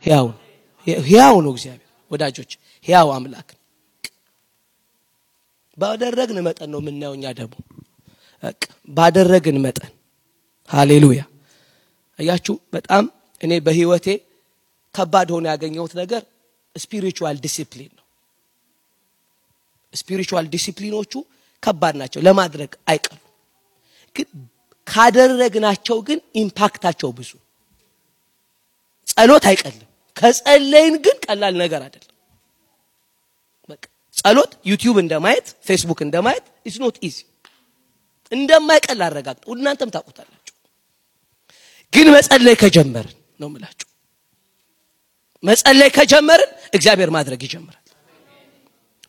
ሕያው ነው እግዚአብሔር ወዳጆች ሕያው አምላክ ባደረግን መጠን ነው ምናየውኛ ደግሞ ባደረግን መጠን ሃሌሉያ አያችሁ በጣም እኔ በህይወቴ ከባድ ሆነ ያገኘሁት ነገር ስፒሪቹዋል ዲሲፕሊን ነው ስፒሪቹዋል ዲሲፕሊኖቹ ከባድ ናቸው ለማድረግ አይቀሩ ግን ካደረግናቸው ግን ኢምፓክታቸው ብዙ ጸሎት አይቀልም ከጸለይን ግን ቀላል ነገር አይደለም በቃ ጸሎት ዩቲዩብ እንደማየት ፌስቡክ እንደማየት is not easy እንደማይቀል አረጋግጠው እናንተም ታውቁታላችሁ ግን መጸለይ ከጀመርን ነው የምላችሁ መጸለይ ከጀመርን እግዚአብሔር ማድረግ ይጀምራል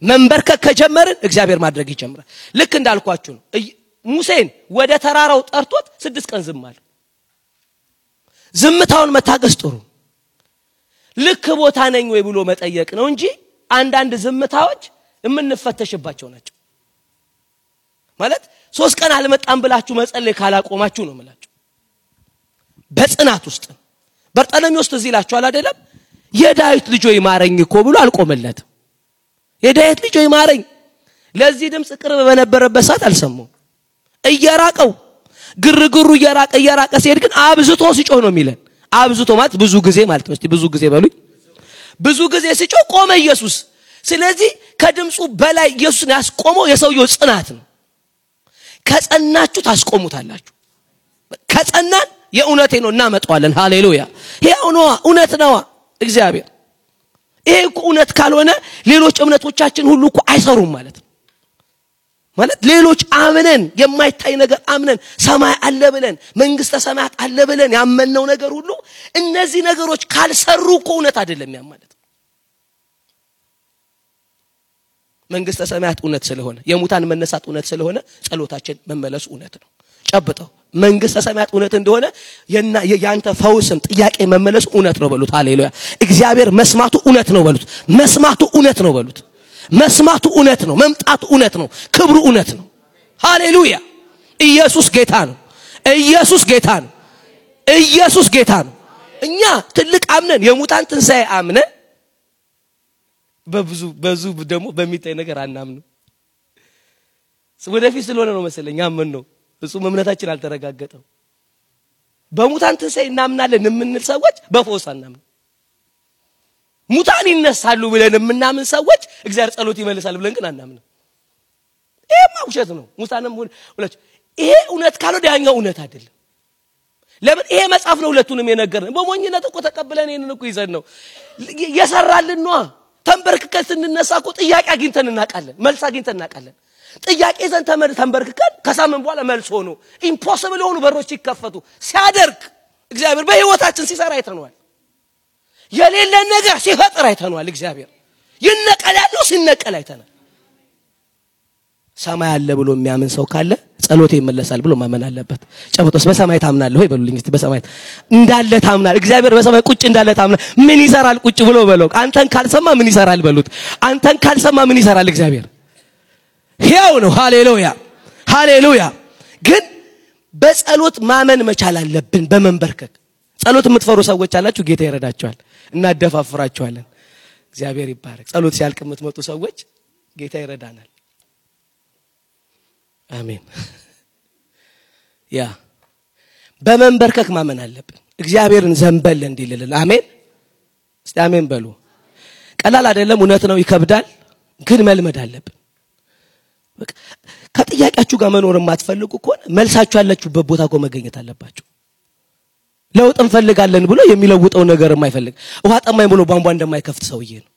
መንበርከክ ከጀመርን እግዚአብሔር ማድረግ ይጀምራል ልክ እንዳልኳችሁ ነው ሙሴን ወደ ተራራው ጠርቶት 6 ቀን ዝም አለ ዝምታውን መታገስ ጥሩ ልክ ቦታ ነኝ ወይ ብሎ መጠየቅ ነው እንጂ አንዳንድ ዝምታዎች የምንፈተሽባቸው ናቸው ማለት 3 ቀን አልመጣም ብላችሁ መጸለይ ካላቆማችሁ ነው የምላችሁ በጽናት ውስጥ በርጠለሚውስ እዚህ ይላችኋል አይደለም የዳዊት ልጅ ሆይ ማረኝ እኮ ብሎ አልቆመለትም የዳዊት ልጅ ሆይ ማረኝ ለዚህ ድምጽ ቅርብ በነበረበት ሰዓት አልሰማው እየራቀው ግርግሩ እየራቀ ሲሄድ ግን አብዝቶ ሲጮህ ነው የሚለን አብዝቶ ማለት ብዙ ጊዜ ማለት ነው እስቲ ብዙ ጊዜ በሉኝ ብዙ ጊዜ ሲጮህ ቆመ ኢየሱስ ስለዚህ ከድምጹ በላይ ኢየሱስን ያስቆመው የሰውየው ጽናት ነው ከጸናችሁ ታስቆሙታላችሁ ከጸናን የእውነቴ ነው እናመጣዋለን ሃሌሉያ ይሄው ነው እውነት ነው እግዚአብሔር ይሄ እኮ እውነት ካልሆነ ሌሎች እምነቶቻችን ሁሉ እኮ አይሰሩም ማለት ነው ማለት ሌሎች አምነን የማይታይ ነገር አምነን ሰማይ አለ ብለን መንግስተ ሰማያት አለ ብለን ያመነው ነገር ሁሉ እነዚህ ነገሮች ካልሰሩ እኮ እውነት አይደለም ያ ማለት መንግስተ ሰማያት እውነት ስለሆነ የሙታን መነሳት እውነት ስለሆነ ጸሎታችን መመለስ እውነት ነው ጨብጠው መንግስተ ሰማያት እውነት እንደሆነ ያንተ ፈውስም ጥያቄ መመለስ እውነት ነው በሉት ሃሌሉያ እግዚአብሔር መስማቱ እውነት ነው በሉት መስማቱ እውነት ነው በሉት መስማቱ እውነት ነው መምጣቱ እውነት ነው ክብሩ እውነት ነው ሃሌሉያ ኢየሱስ ጌታ ነው ኢየሱስ ጌታ ነው ኢየሱስ ጌታ ነው እኛ ትልቅ አምነን የሙታን ትንሳኤ አምነን በዙ ደግሞ በሚታይ ነገር አናምነው ወደፊት ስለሆነ ነው መሰለኝ አመን ነው እሱ እምነታችን አልተረጋገጠው በሙታን ትንሳኤ እናምናለን የምንል ሰዎች በፈውስ አናምነው ሙታን ይነሳሉ ብለን የምናምን ሰዎች እግዚአብሔር ጸሎት ይመልሳል ብለን ግን አናምነው ይሄ ማውሸት ነው ሙታንም ሁለት ይሄ እውነት ካልሆነ ያኛው እውነት አይደለም ለምን ይሄ መጽሐፍ ነው ሁለቱንም የነገረን በሞኝነት እኮ ተቀበለን ይሄንን እኮ ይዘን ነው የሰራልን ነው ተንበርክከን ስንነሳ እኮ ጥያቄ አግኝተን እናቃለን መልስ አግኝተን እናቃለን ጥያቄ ዘን ተንበርክከን ከሳምን በኋላ መልስ ሆኖ ኢምፖሲብል ሆኑ በሮች ይከፈቱ ሲያደርግ እግዚአብሔር በህይወታችን ሲሰራ አይተነዋል የሌለ ነገር ሲፈጥር አይተነዋል እግዚአብሔር ይነቀላለው ሲነቀል አይተናል ሰማይ አለ ብሎ የሚያምን ሰው ካለ ጸሎቴ ይመለሳል ብሎ ማመን አለበት ጨብጦስ በሰማይ ታምናለህ ወይ በሉልኝ እስቲ በሰማይ እንዳለ ታምናል እግዚአብሔር በሰማይ ቁጭ እንዳለ ታምናል ምን ይሰራል ቁጭ ብሎ በለው አንተን ካልሰማ ምን ይሰራል በሉት አንተን ካልሰማ ምን ይሰራል እግዚአብሔር ሕያው ነው ሃሌሉያ ሃሌሉያ ግን በጸሎት ማመን መቻል አለብን በመንበርከክ ጸሎት የምትፈሩ ሰዎች አላችሁ ጌታ ይረዳቸዋል እናደፋፍራቸዋለን እግዚአብሔር ይባረክ ጸሎት ሲያልቅ የምትመጡ ሰዎች ጌታ ይረዳናል አሜን ያ በመንበርከክ ማመን አለብን እግዚአብሔርን ዘንበል እንዲልልን አሜን እስቲ አሜን በሉ ቀላል አይደለም እውነት ነው ይከብዳል ግን መልመድ አለብን በቃ ከጥያቄያችሁ ጋር መኖር የማትፈልጉ ከሆነ መልሳችሁ ያላችሁበት ቦታ ጋር መገኘት አለባችሁ ለውጥ እንፈልጋለን ብሎ የሚለውጠው ነገር የማይፈልግ ውሃ ጠማኝ ብሎ ቧንቧ እንደማይከፍት ሰውዬ ነው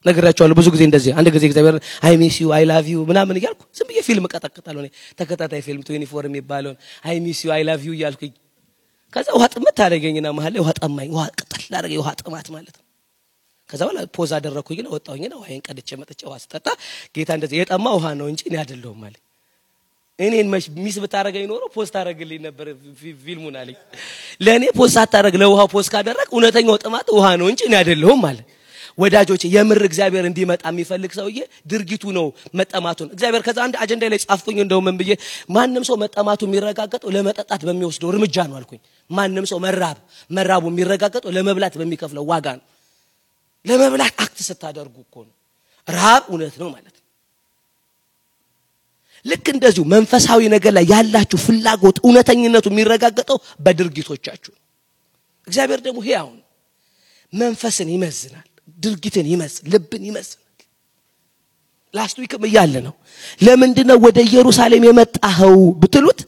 ነገራቸዋለሁ ብዙ ጊዜ እንደዚህ አንድ ጊዜ እግዚአብሔር አይ ሚስ ዩ አይ ላቭ ዩ ምናምን ይያልኩ ዝም ብዬ ፊልም ቀጠቅጣለሁ እኔ ተከታታይ ፊልም 24 የሚባለው አይ ሚስ ዩ አይ ላቭ ዩ ይያልኩኝ ከዛ ውሃ ጥማት ታደርገኝና መሐል ውሃ ጠማኝ ውሃ ቀጠል አደረገኝ ውሃ ጥማት ማለት ነው ከዛ በኋላ ፖዝ አደረኩኝ ነው ወጣሁኝና ውሃዬን ቀድቼ መጥቼ ውሃ ስጠጣ ጌታ እንደዚህ የጠማ ውሃ ነው እንጂ እኔ አይደለሁም ማለት እኔን ሚስ ብታረገኝ ኖሮ ፖስት አደረግልኝ ነበር ፊልሙን አለኝ ለኔ ፖስት አታረግ ለውሃው ፖስት ካደረክ እውነተኛው ጥማት ውሃ ነው እንጂ እኔ አይደለሁም ማለት ወዳጆች የምር እግዚአብሔር እንዲመጣ የሚፈልግ ሰውዬ ድርጊቱ ነው መጠማቱን እግዚአብሔር ከዛ አንድ አጀንዳ ላይ ጻፍኩኝ እንደው ምን ብዬ ማንንም ሰው መጠማቱ የሚረጋገጠው ለመጠጣት በሚወስደው እርምጃ ነው አልኩኝ ማንንም ሰው መራቡ የሚረጋገጠው ለመብላት በሚከፍለው ዋጋ ነው ለመብላት አክት ስታደርጉ እኮ ነው ረሃብ እውነት ነው ማለት ልክ እንደዚሁ መንፈሳዊ ነገር ላይ ያላችሁ ፍላጎት እውነተኝነቱ የሚረጋገጠው በድርጊቶቻችሁ እግዚአብሔር ደግሞ ሕያው ነው መንፈስን ይመዝናል ድርጊትን ይመዝናል ልብን ይመዝናል ላስት ዊክም ይያለ ነው ለምንድነው ወደ ኢየሩሳሌም የመጣኸው ብትሉት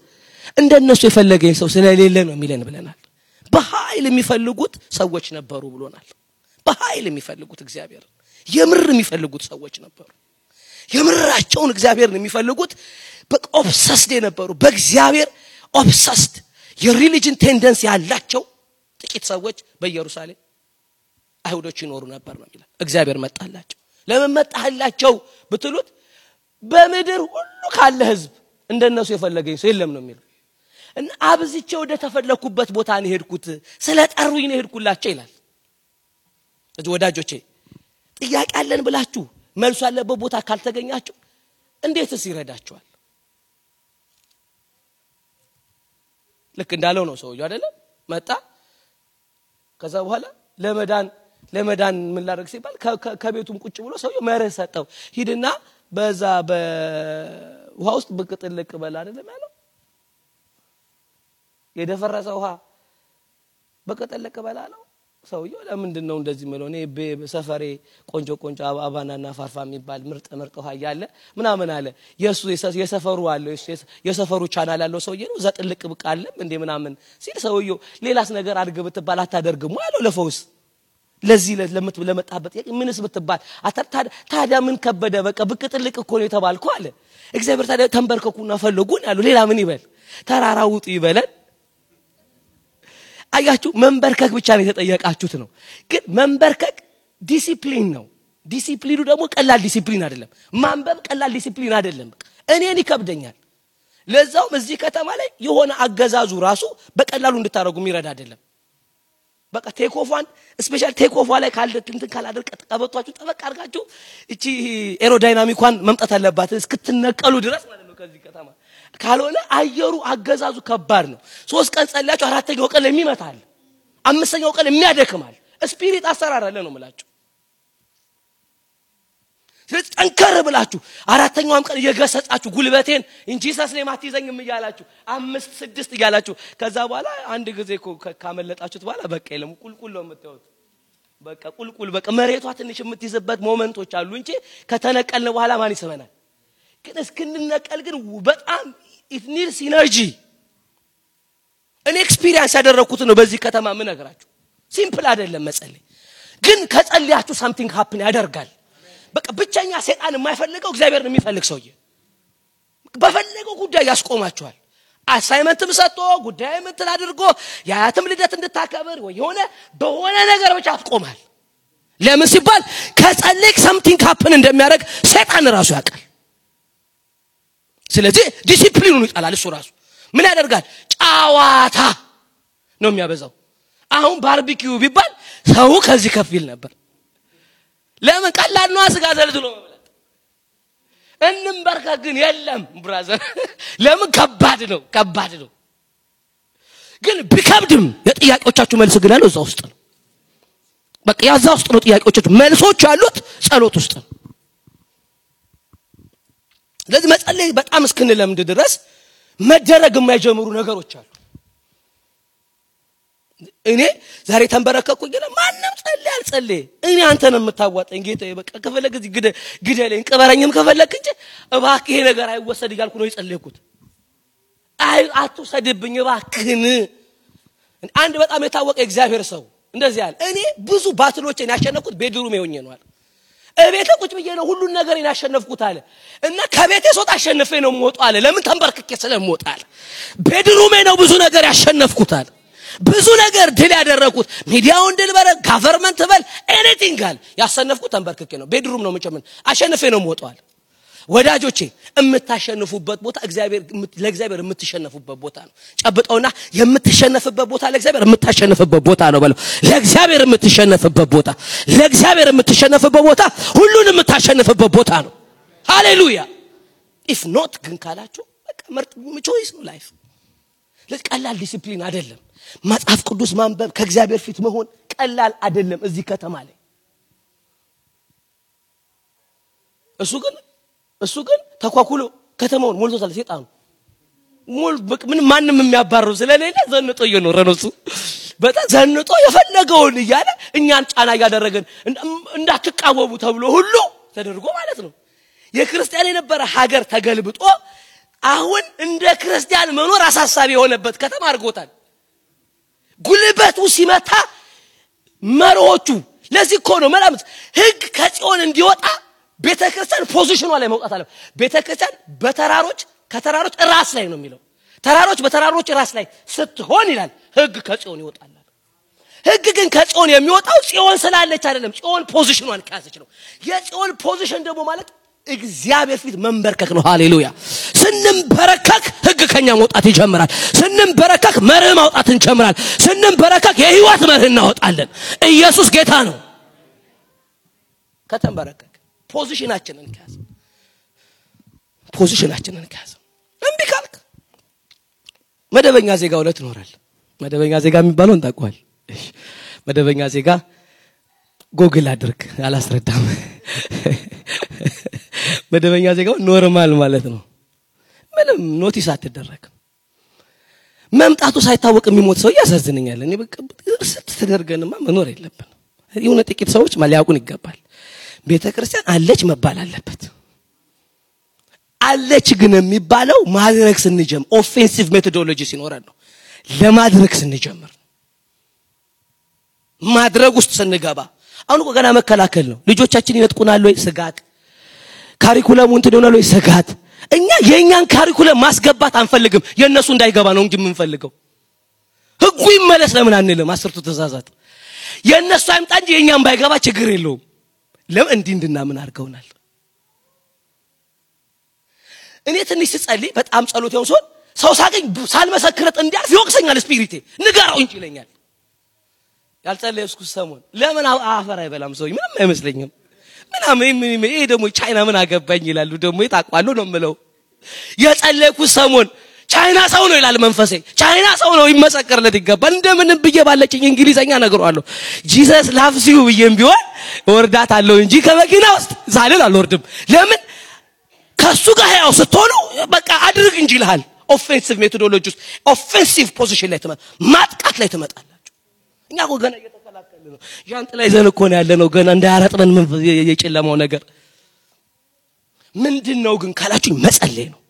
እንደነሱ የፈለገኝ ሰው ስለሌለ ነው የሚለን ብለናል በኃይል የሚፈልጉት ሰዎች ነበሩ ብሎናል በኃይል የሚፈልጉት እግዚአብሔር የምር የሚፈልጉት ሰዎች ነበሩ የምራቸውን እግዚአብሔርን የሚፈልጉት በኦብሰስድ ነበሩ በእግዚአብሔር ኦብሰስድ የሪሊጅን ቴንደንሲ ያላቸው ጥቂት ሰዎች በኢየሩሳሌም አይሁዶች ይኖሩ ነበር ነው ይላል እግዚአብሔር መጣላቸው ለምን መጣላቸው ብትሉት በመድር ሁሉ ካለ ህዝብ እንደነሱ የፈለገኝ ሰው የለም ነው የሚለው እና አብዝቼ ወደ ተፈለኩበት ቦታ ነው ሄድኩት ስለጠሩኝ ነው ሄድኩላቸው ይላል እዚህ ወዳጆቼ ጥያቄ አለን ብላችሁ መልሱ ያለበት ቦታ ካልተገኛችሁ እንዴትስ ይረዳችኋል ልክ እንዳለው ነው ሰውዬው አይደለም መጣ ከዛ በኋላ ለመዳን ምን ላደርግ ሲባል ከቤቱም ቁጭ ብሎ ሰውዬው መርህ ሰጠው ሂድና በዛ በውሃ ውስጥ ብቅጥልቅ በል አይደለም ያለው የደፈረሰ ውሃ በቅጥልቅ በላለው ሰውዬው ለምንድነው እንደዚህ ማለት እኔ በሰፈሬ ቆንጆ አባናና ፋርፋ የሚባል ምርጥ ውሃ ያለ ምናምን አለ የሰፈሩ አለ የሰፈሩ ቻናል ያለው ሰውዬ ነው ዘጥልቅ ብቃለ እንዴ ምናምን ሲል ሰውዬው ሌላስ ነገር አድርግ ብትባል አታደርግም አለው ለፈውስ ለዚህ ለመጣበት ምንስ ብትባል ታዲያ ምን ከበደ በቃ ብቅጥልቅ እኮ ነው የተባልኩ አለ እግዚአብሔር ታዲያ ተንበርከኩና ፈልጉን ያለው ሌላ ምን ይበል ተራራው ውጡ ይበላል አያችሁ መንበርከክ ብቻ ነው የተጠየቃችሁት ነው ግን መንበርከክ ዲሲፕሊን ነው ዲሲፕሊኑ ደግሞ ቀላል ዲሲፕሊን አይደለም ማንበብ ቀላል ዲሲፕሊን አይደለም እኔን ይከብደኛል ለዛውም እዚህ ከተማ ላይ የሆነ አገዛዙ ራሱ በቀላሉ እንድታረጉ የሚረዳ አይደለም በቃ ቴክ ኦፍ ዋን ስፔሻል ቴክ ኦፍ ላይ ካላደርቀ ቀበቷችሁ ጠበቅ አድርጋችሁ እቺ ኤሮዳይናሚኳን መምጣት አለባት እስክትነቀሉ ድረስ ማለት ነው ከዚህ ከተማ ካልሆነ አየሩ አገዛዙ ከባድ ነው 3 ቀን ጸልያችሁ አራተኛው ቀን ለሚመታል አምስተኛው ቀን የሚያደክማል ስፒሪት አሰራር አለ ነው ማለት ስለዚህ ጠንከር ብላችሁ አራተኛውም ቀን እየገሰጻችሁ ጉልበቴን እንጂ ሰስኔ ማትይዘኝም ይያላችሁ 5 6 ይያላችሁ ከዛ በኋላ አንድ ጊዜ ካመለጣችሁት በኋላ በቃ የለም ቁልቁል ነው የምትወጡት በቃ ቁልቁል በቃ መሬቷ ትንሽ የምትይዝበት ሞመንቶች አሉ እንጂ ከተነቀልን በኋላ ማን ይሰበናል ግን እስክንነቀል ግን በጣም it needs energy እኔ ኤክስፒሪየንስ ያደረኩት ነው በዚህ ከተማ ምን ነገራችሁ ሲምፕል አይደለም መጸለይ ግን ከጸልያችሁ something happen ያደርጋል በቃ ብቻኛ ሰይጣን የማይፈልገው እግዚአብሔርን የሚፈልግ ሰውዬ በፈለገው ጉዳይ ያስቆማችኋል አሳይመንትም ሰጥቶ ጉዳይም እንትን አድርጎ ያያትም ልደት እንድታከብር ወይ በሆነ ነገር ብቻ አትቆማል ለምን ሲባል ከጸለይክ something happen እንደሚያደርግ ሰይጣን ራሱ ያውቃል ስለዚህ ዲሲፕሊኑን ይጣላል እሱ ራሱ ምን ያደርጋል ጫዋታ ነው የሚያበዛው አሁን ባርቢኪው ቢባል ሰው ከዚህ ከፊል ነበር ለምን ቀላል ነው አስጋ ዘልዝሎ መብላት እንንበርካ ግን የለም ብራዘር ለምን ከባድ ነው ግን ቢከብድም የጥያቄዎቻችሁ መልስ ግን ያለው እዛው ውስጥ ነው በቃ ያዛው ውስጥ ነው ጥያቄዎቻችሁ መልሶች ያሉት ጸሎት ውስጥ ነው ለዚህ መጸለይ በጣም እስክንለምድ ድረስ መደረግ የማይጀምሩ ነገሮች አሉ እኔ ዛሬ ተንበረከኩኝ ግን ማንንም ጸልይ እኔ አንተን የምታዋጣኝ ጌታዬ በቃ ከፈለክ እዚህ ግደለኝ ቅበረኝም ከፈለክ እንጂ እባክህ ይሄ ነገር አይወሰድ ይላልኩ ነው የጸለይኩት አትወሰድብኝ እባክህን አንድ በጣም የታወቀ እግዚአብሔር ሰው እንደዚህ ያለ እኔ ብዙ ባትሎችን ያሸነፍኩት ቤድሩም ይሆኜ ነው አለ እቤቴ ቁጭ ብዬ ነው ሁሉ ነገር ያሸነፍኩት አለ እና ከቤቴ ሶጣ አሸነፈ ነው ሞጣ አለ ለምን ተንበርክኬ ስለሞጣ አለ ቤድሩሜ ነው ብዙ ነገር ያሸነፍኩት አለ ብዙ ነገር ድል ያደረኩት ሚዲያውን ድል በረ ጋቨርንመንት በል ኤኒቲንግ አለ ያሸነፍኩት ተንበርክኬ ነው ቤድሩም ነው መጨመን አሸነፈ ነው ሞጣ አለ ወዳጆቼ የምታሸንፉበት ቦታ ለእግዚአብሔር የምትሸነፉበት ቦታ ነው። ጨብጠውና የምትሸነፍበት ቦታ ለእግዚአብሔር የምታሸንፍበት ቦታ ነው በለው። ለእግዚአብሔር የምትሸነፍበት ቦታ፣ ለእግዚአብሔር የምትሸነፍበት ቦታ ሁሉንም የምታሸንፍበት ቦታ ነው። ሃሌሉያ። if not ግን ካላችሁ በቃ ምርጥ ቾይስ ነው ላይፍ። ለቀላል ዲሲፕሊን አይደለም። መጽሐፍ ቅዱስ ማንበብ ከእግዚአብሔር ፊት መሆን ቀላል አይደለም እዚህ ከተማ ላይ። እሱ ግን ተኳኩሎ ከተማውን ሞልቶታል ሰይጣኑ። ምን ማንንም የሚያባረው ስለሌለ ዘንጦ እየኖረ ነው እሱ። በጣም ዘንጦ የፈለገውን እያለ እኛን ጫና ያደረገን እንዳትቃወሙ ተብሎ ሁሉ ተደርጎ ማለት ነው። የክርስቲያን የነበረ ሀገር ተገልብጦ አሁን እንደ ክርስቲያን መኖር አሳሳቢ የሆነበት ከተማ አድርጎታል። ጉልበቱ ሲመታ መሮቹ ለዚህ እኮ ነው መላምት ህግ ከጽዮን እንዲወጣ ቤተክርስቲያን ፖዚሽኗ ላይ መውጣት አለ። ቤተክርስቲያን ከተራሮች ራስ ላይ ነው የሚለው። ተራሮች በተራሮች ራስ ላይ ስትሆን ይላል ህግ ከጽዮን ይወጣል። ህግ ግን ከጽዮን የሚወጣው ጽዮን ስላለች አይደለም፣ ጽዮን ፖዚሽኗን ካሰች ነው። የጽዮን ፖዚሽን ደግሞ ማለት እግዚአብሔር ፊት መንበርከክ ነው። ሃሌሉያ። ስንንበረከክ ህግ ከኛ መውጣት ይጀምራል። ስንንበረከክ መርህ ማውጣት እንጀምራለን። ስንንበረከክ የህይወት መርህ እናወጣለን። ኢየሱስ ጌታ ነው። ከተንበረከክ ፖዚሽናችንን ካዝ እንቢ ካልክ መደበኛ ዜጋ ሁለት ይኖራል። መደበኛ ዜጋ የሚባለው እንታውቀዋል። እሺ መደበኛ ዜጋ ጎግል አድርግ አላስረዳም። መደበኛ ዜጋው ኖርማል ማለት ነው። ምንም ኖቲስ አትደረግም። መምጣቱ ሳይታወቅ የሚሞት ሰው ያሳዝነኛል። እኔ በቃ ስትደርገንማ መኖር የለብንም። የሆነ ጥቂት ሰዎች ማሊያቁን ይገባል። ቤተክርስቲያን አለች መባል አለበት። አለች ግን የሚባለው ማድረግ ስንጀምር ኦፌንሲቭ ሜቶዶሎጂ ሲኖረን ነው። ለማድረግ ስንጀምር ማድረግ ውስጥ ስንገባ አሁን እኮ ገና መከላከል ነው። ልጆቻችን ይነጥቁናል ወይ ስጋት፣ ካሪኩለሙን ትደውናል ወይ ስጋት። እኛ የኛን ካሪኩለም ማስገባት አንፈልግም፣ የነሱ እንዳይገባ ነው እንጂ የምንፈልገው። ህጉ ይመለስ ለምን አንልም? 10ቱ ትእዛዛት የነሱ አይምጣ እንጂ የኛን ባይገባ ችግር የለውም። ለምን እንድናምን አድርገውናል። እኔ ትንሽ ስጸልይ በጣም ጸሎት ያው ሰው ሳገኝ ሳልመሰክረት እንዲያልፍ ይወቅሰኛል ስፒሪቴ። ንገራው እንጂ ይለኛል። ያልጸለይኩ ሰሞን ለምን አፈር አይበላም ሰው ምንም አይመስለኝም። ምንም ይሄ ደግሞ ቻይና ምን አገባኝ ይላሉ። ደግሞ ይጣቋሉ ነው የምለው። የጸለይኩ ሰሞን ቻይና ሰው ነው ይላል መንፈሴ። ቻይና ሰው ነው ይመሰከርለት ይገባል። እንደምንም ብዬ ባለችኝ እንግሊዘኛ ነገርዋለሁ። ጂሰስ ላቭስ ዩ ብዬም ቢሆን ወርዳት አለው እንጂ ከመኪና ውስጥ ዛልል አልወርድም። ለምን ከሱ ጋር ያው ስትሆኑ በቃ አድርግ እንጂ ይልሃል። ኦፌንሲቭ ሜቶዶሎጂስ ኦፌንሲቭ ፖዚሽን ላይ ማጥቃት ላይ ትመጣላችሁ። እኛ እኮ ገና እየተከላከልን ነው። ጃንጥላ ይዘን እኮ ነው ያለነው ገና እንዳያረጥበን የጨለማው ነገር ምንድነው ግን ካላችሁ መጸለይ ነው።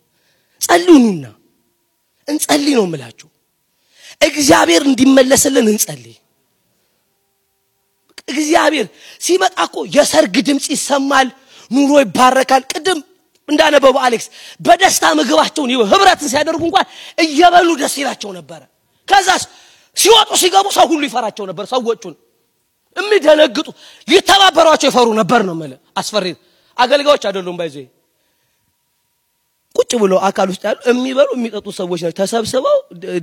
ጸልዩና እንጸልይ ነው የምላችሁ። እግዚአብሔር እንዲመለስልን እንጸልይ። እግዚአብሔር ሲመጣ እኮ የሰርግ ድምጽ ይሰማል፣ ኑሮ ይባረካል። ቅድም እንዳነበው አሌክስ በደስታ ምግባቸውን ህብረትን ሲያደርጉ እንኳን እየበሉ ደስ ይላቸው ነበር። ከዛስ ሲወጡ ሲገቡ ሰው ሁሉ ይፈራቸው ነበር። ሰዎቹን የሚደነግጡ ሊተባበሯቸው ይፈሩ ነበር ነው ማለት። አስፈሪ አገልጋዮች አይደሉም ባይዘ ቁጭ ብሎ አካል ውስጥ ያሉ የሚበሉ የሚጠጡ ሰዎች ናቸው። ተሰብስበው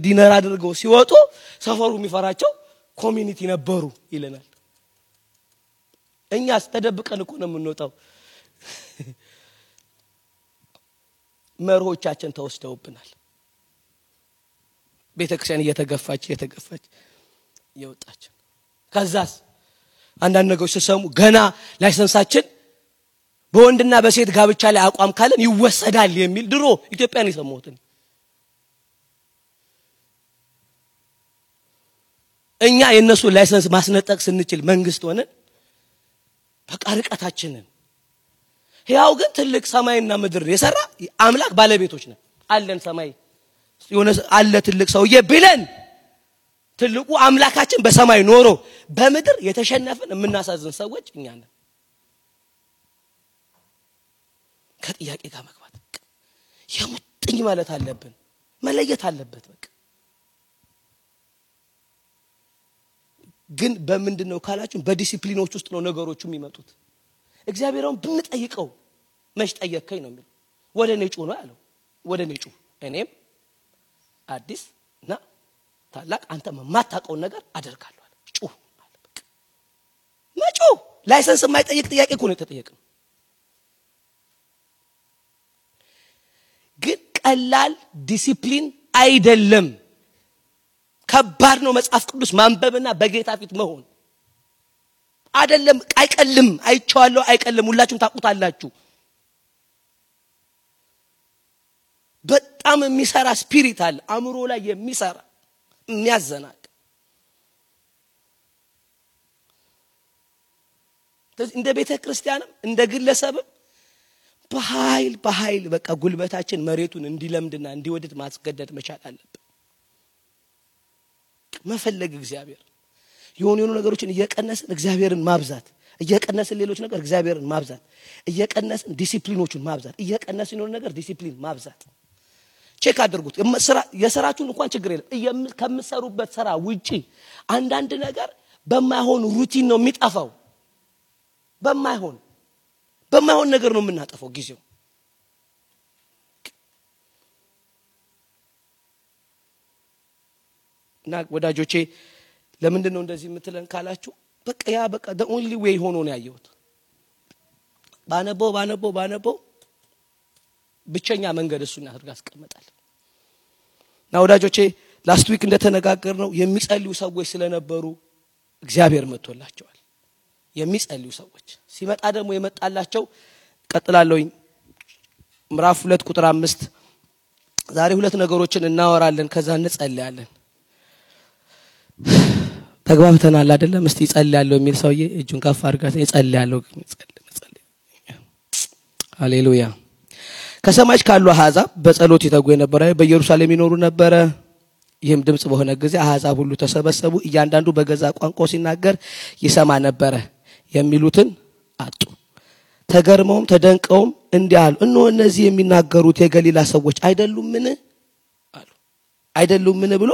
ዲነር አድርገው ሲወጡ ሰፈሩ የሚፈራቸው ኮሚኒቲ ነበሩ ይለናል። እኛስ ተደብቀን እኮ ነው የምንወጣው። መርሆቻችን ተወስደውብናል። ቤተክርስቲያን እየተገፋች ይወጣች። ከዛስ አንዳንድ ነገሮች ሲሰሙ ገና ላይሰንሳችን በወንድና በሴት ጋብቻ ላይ አቋም ካለን ይወሰዳል የሚል ድሮ ኢትዮጵያን ይሰማሁት። እኛ የነሱ ላይሰንስ ማስነጠቅ ስንችል መንግስት ሆነን በቃ ርቀታችንን ያው ግን ትልቅ ሰማይና ምድር የሰራ አምላክ ባለቤቶች ነን። አለን ሰማይ የሆነ አለ ትልቅ ሰውዬ ብለን ትልቁ አምላካችን በሰማይ ኖሮ በምድር የተሸነፈን የምናሳዝን ሰዎች እኛ ነን። ከጥያቄ ጋር መግባት የሙጥኝ ማለት አለብን፣ መለየት አለበት። በቃ ግን በምንድነው ካላችሁ በዲሲፕሊኖች ውስጥ ነው ነገሮቹ የሚመጡት። እግዚአብሔርን ብንጠይቀው መች ጠየከኝ ነው የሚለው ወደ እኔ ጩህ ነው ያለው ወደ እኔ ጩህ እኔም አዲስ እና ታላቅ አንተ ማታቀው ነገር አደርጋለሁ አለ ጩህ አለ በቃ መጮህ ላይሰንስ የማይጠይቅ ጥያቄ እኮ ነው የተጠየቀው ግን ቀላል ዲሲፕሊን አይደለም ከባድ ነው መጽሐፍ ቅዱስ ማንበብና በጌታ ፊት መሆን አይደለም አይቀልም አይቻለሁ አይቀልም ሁላችሁም ታቁታላችሁ በጣም የሚሰራ ስፒሪት አለ አእምሮ ላይ የሚሰራ የሚያዘናቅ እንደ ቤተ ክርስቲያንም እንደ ግለሰብም በኃይል በቃ ጉልበታችን መሬቱን እንዲለምድና እንዲወድድ ማስገደድ መቻል አለበት መፈለግ እግዚአብሔር የሆኑ ነገሮችን እየቀነስን እግዚአብሔርን ማብዛት እየቀነስን ሌሎች ነገር እግዚአብሔርን ማብዛት እየቀነስን ዲሲፕሊኖቹን ማብዛት እየቀነስን የሆነ ነገር ዲሲፕሊን ማብዛት ቼክ አድርጉት የሥራችሁን እንኳን ችግር የለም ከምትሰሩበት ሥራ ውጪ አንዳንድ ነገር በማይሆን ሩቲን ነው የሚጣፋው በማይሆን ነገር ነው የምናጠፋው ጊዜው እና ወዳጆቼ ለምንድን ነው እንደዚህ የምትለን ካላችሁ በቃ the only way ሆኖ ነው ያየሁት ባነበው ብቸኛ መንገድ እሱን አድርጋ አስቀመጣል እና ወዳጆቼ ላስት ዊክ እንደተነጋገርነው የሚጸልዩ ሰዎች ስለነበሩ እግዚአብሔር መጥቶላቸዋል የሚጸልዩ ሰዎች ሲመጣ ደግሞ የመጣላቸው ቀጥላለሁኝ ምዕራፍ 2 ቁጥር 5 ዛሬ ሁለት ነገሮችን እናወራለን ከዛ እንጸልያለን ተግባብተናል አይደለም እስቲ ጸልያለሁ የሚል ሰውዬ እጁን ከፍ አድርጋት ጸልያለሁ ሃሌሉያ ከሰማይ ካሉ አሕዛብ በጸሎት ይተጉ የነበረ በኢየሩሳሌም ይኖሩ ነበር ይህም ድምጽ በሆነ ጊዜ አሕዛብ ሁሉ ተሰበሰቡ እያንዳንዱ በገዛ ቋንቋው ሲናገር ይሰማ ነበር የሚሉትን አጡ ተገርመውም ተደንቀውም እንዲያሉ እነሆ እነዚህ የሚናገሩት የገሊላ ሰዎች አይደሉምን ብሎ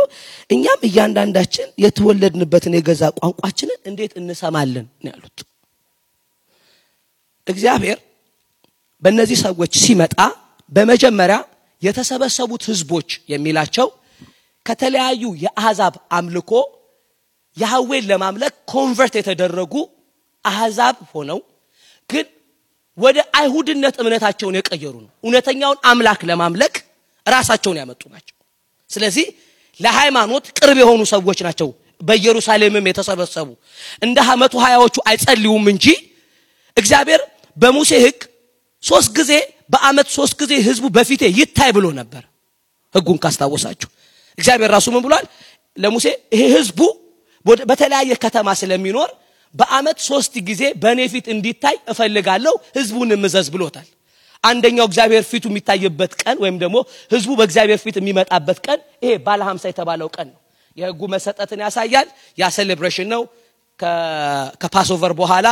እኛም እያንዳንዳችን የተወለድንበትን የገዛ ቋንቋችንን እንዴት እንሰማለን ነው ያሉት እግዚአብሔር በእነዚህ ሰዎች ሲመጣ በመጀመሪያ የተሰበሰቡት ህዝቦች የሚላቸው ከተለያዩ የአሕዛብ አምልኮ ያህዌን ለማምለክ ኮንቨርት የተደረጉ አሕዛብ ሆነው ግን ወደ አይሁድነት እምነታቸውን የቀየሩ ነው እውነተኛውን አምላክ ለማምለክ ራሳቸውን ያመጡ ናቸው ስለዚህ ለሃይማኖት ቅርብ የሆኑ ሰዎች ናቸው በኢየሩሳሌምም የተሰበሰቡ እንደ 120ዎቹ አይጸልዩም እንጂ እግዚአብሔር በሙሴ ሕግ 3 ጊዜ በአመት 3 ጊዜ ህዝቡ በፊቴ ይታይ ብሎ ነበር ሕጉን ካስታወሳችሁ እግዚአብሔር ራሱ ምን ብሏል ለሙሴ ይሄ ህዝቡ በተለያየ ከተማ ስለሚኖር በአመት 3 ጊዜ በኔ ፊት እንዲታይ እፈልጋለሁ ህዝቡን ምዘዝ ብሎታል አንደኛው እግዚአብሔር ፊቱ የሚታይበት ቀን ወይም ደግሞ ህዝቡ በእግዚአብሔር ፊት የሚመጣበት ቀን ይሄ ባለ 50 የተባለው ቀን ነው የሕጉ መሰጠትን ያሳያል ያ ሴሌብሬሽን ነው ከፓስኦቨር በኋላ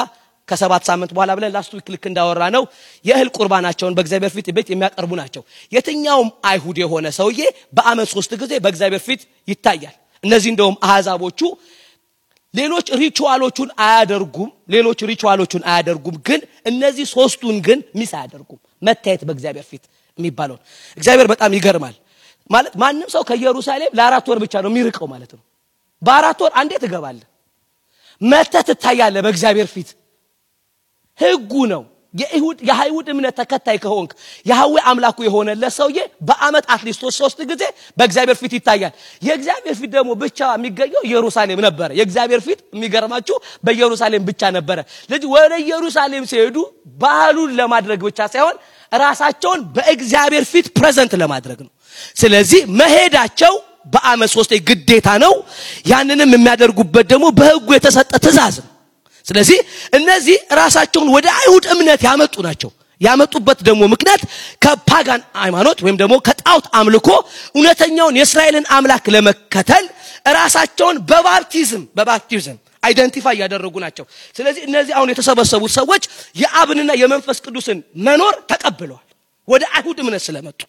ከ7 ሳምንት በኋላ ብለን ላስት ዊክ ልክ እንዳወራ ነው የእህል ቁርባናቸውን በእግዚአብሔር ፊት ቤት የሚያቀርቡ ናቸው የትኛውም አይሁድ የሆነ ሰውዬ በአመት 3 ጊዜ በእግዚአብሔር ፊት ይታያል እነዚህ እንደውም አሕዛቦቹ ሌሎች ሪቹዋሎቹን አያደርጉም ግን እነዚህ ሶስቱን ግን ሚስ አያደርጉም መታየት በእግዚአብሔር ፊት የሚባለው እግዚአብሔር በጣም ይገርማል ማለት ማንንም ሰው ከኢየሩሳሌም ለ4 ወር ብቻ ነው የሚርቀው ማለት ነው በ4 ወር አንዴ ትገባለህ መተት ታያለህ በእግዚአብሔር ፊት ሕጉ ነው የአይሁድ እምነት ተከታይ ከሆንክ ያህዌ አምላኩ የሆነ ለሰውዬ በአመት አትሊስት 3 ጊዜ በእግዚአብሔር ፊት ይታያል የእግዚአብሔር ፊት ደግሞ ብቻ የሚገኘው ኢየሩሳሌም ነበር የእግዚአብሔር ፊት የሚገርማችሁ በኢየሩሳሌም ብቻ ነበር ስለዚህ ወደ ኢየሩሳሌም ሲሄዱ ባህሉን ለማድረግ ብቻ ሳይሆን ራሳቸውን በእግዚአብሔር ፊት ፕሬዘንት ለማድረግ ነው ስለዚህ መሄዳቸው በአመት 3 ግዴታ ነው ያንንም የሚያደርጉበት ደግሞ በሕጉ የተሰጠ ትእዛዝ ነው ስለዚህ እነዚህ ራሳቸውን ወደ አይሁድ እምነት ያመጡ ናቸው ያመጡበት ደግሞ ምክንያት ከፓጋን ሃይማኖት ወይም ደግሞ ከጣዖት አምልኮ እውነተኛውን የእስራኤልን አምላክ ለመከተል ራሳቸውን በባፕቲዝም አይደንቲፋይ ያደረጉ ናቸው ስለዚህ እነዚህ አሁን የተሰበሰቡት ሰዎች የአብንና የመንፈስ ቅዱስን መኖር ተቀብለዋል ወደ አይሁድ እምነት ስለመጡ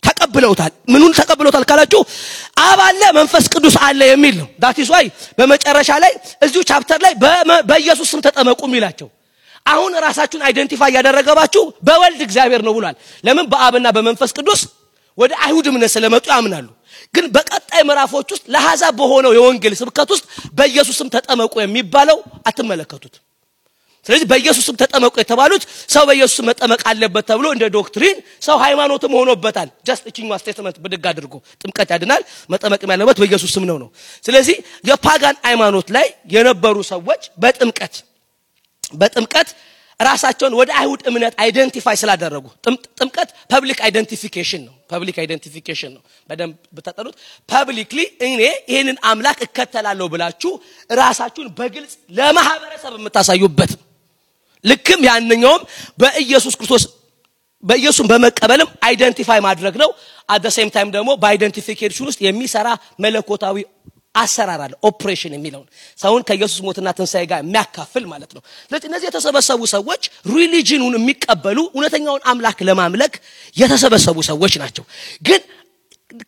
ተቀብለውታል ምኑን ተቀብለውታል ካላችሁ አብ አለ መንፈስ ቅዱስ አለ የሚል ነው that is why በመጨረሻ ላይ እዚሁ ቻፕተር ላይ በኢየሱስ ስም ተጠመቁ የሚላቸው አሁን ራሳችሁን አይደንቲፋይ ያደረጋባችሁ በወልድ እግዚአብሔር ነው ብሏል። ለምን በአብና በመንፈስ ቅዱስ ወደ አይሁድ እምነት ስለመጡ ያምናሉ። ግን በቀጣይ ምዕራፎች ውስጥ ለሐሳብ በሆነው የወንጌል ስብከት ውስጥ በኢየሱስም ተጠመቁ የሚባለው አትመለከቱት። ስለዚህ በኢየሱስም ተጠመቁ የተባሉት ሰው በኢየሱስ መጠመቅ አለበት ተብሎ እንደ ዶክትሪን ሰው ሃይማኖትም ሆኖበታል። ጀስት እቺኛው ስቴትመንት ብድግ አድርጎ ጥምቀት ያድናል መጠመቅም ያለበት በኢየሱስ ስም ነው። ስለዚህ የፓጋን ሃይማኖት ላይ የነበሩ ሰዎች በጥምቀት ራሳቸውን ወደ አይሁድ እምነት አይደንቲፋይ ስላደረጉ ጥምቀት ፐብሊክ አይደንቲፊኬሽን ነው። በደንብ በተጠሩት ፐብሊክሊ እኔ ይሄንን አምላክ እከተላለሁ ብላችሁ ራሳችሁን በግልጽ ለማህበረሰብ የምታሳዩበት ልክም ያንኛውም በኢየሱስ በመቀበልም አይደንቲፋይ ማድረግ ነው። at the same time ደግሞ በአይደንቲፊኬሽን ውስጥ የሚሰራ መለኮታዊ አሰራር አለ ኦፕሬሽን የሚለው ሰውን ከኢየሱስ ሞትና ትንሳኤ ጋር የሚያካፍል ማለት ነው። ስለዚህ እነዚህ የተሰበሰቡ ሰዎች ሪሊጂኑን የሚቀበሉ እውነተኛውን አምላክ ለማምለክ የተሰበሰቡ ሰዎች ናቸው። ግን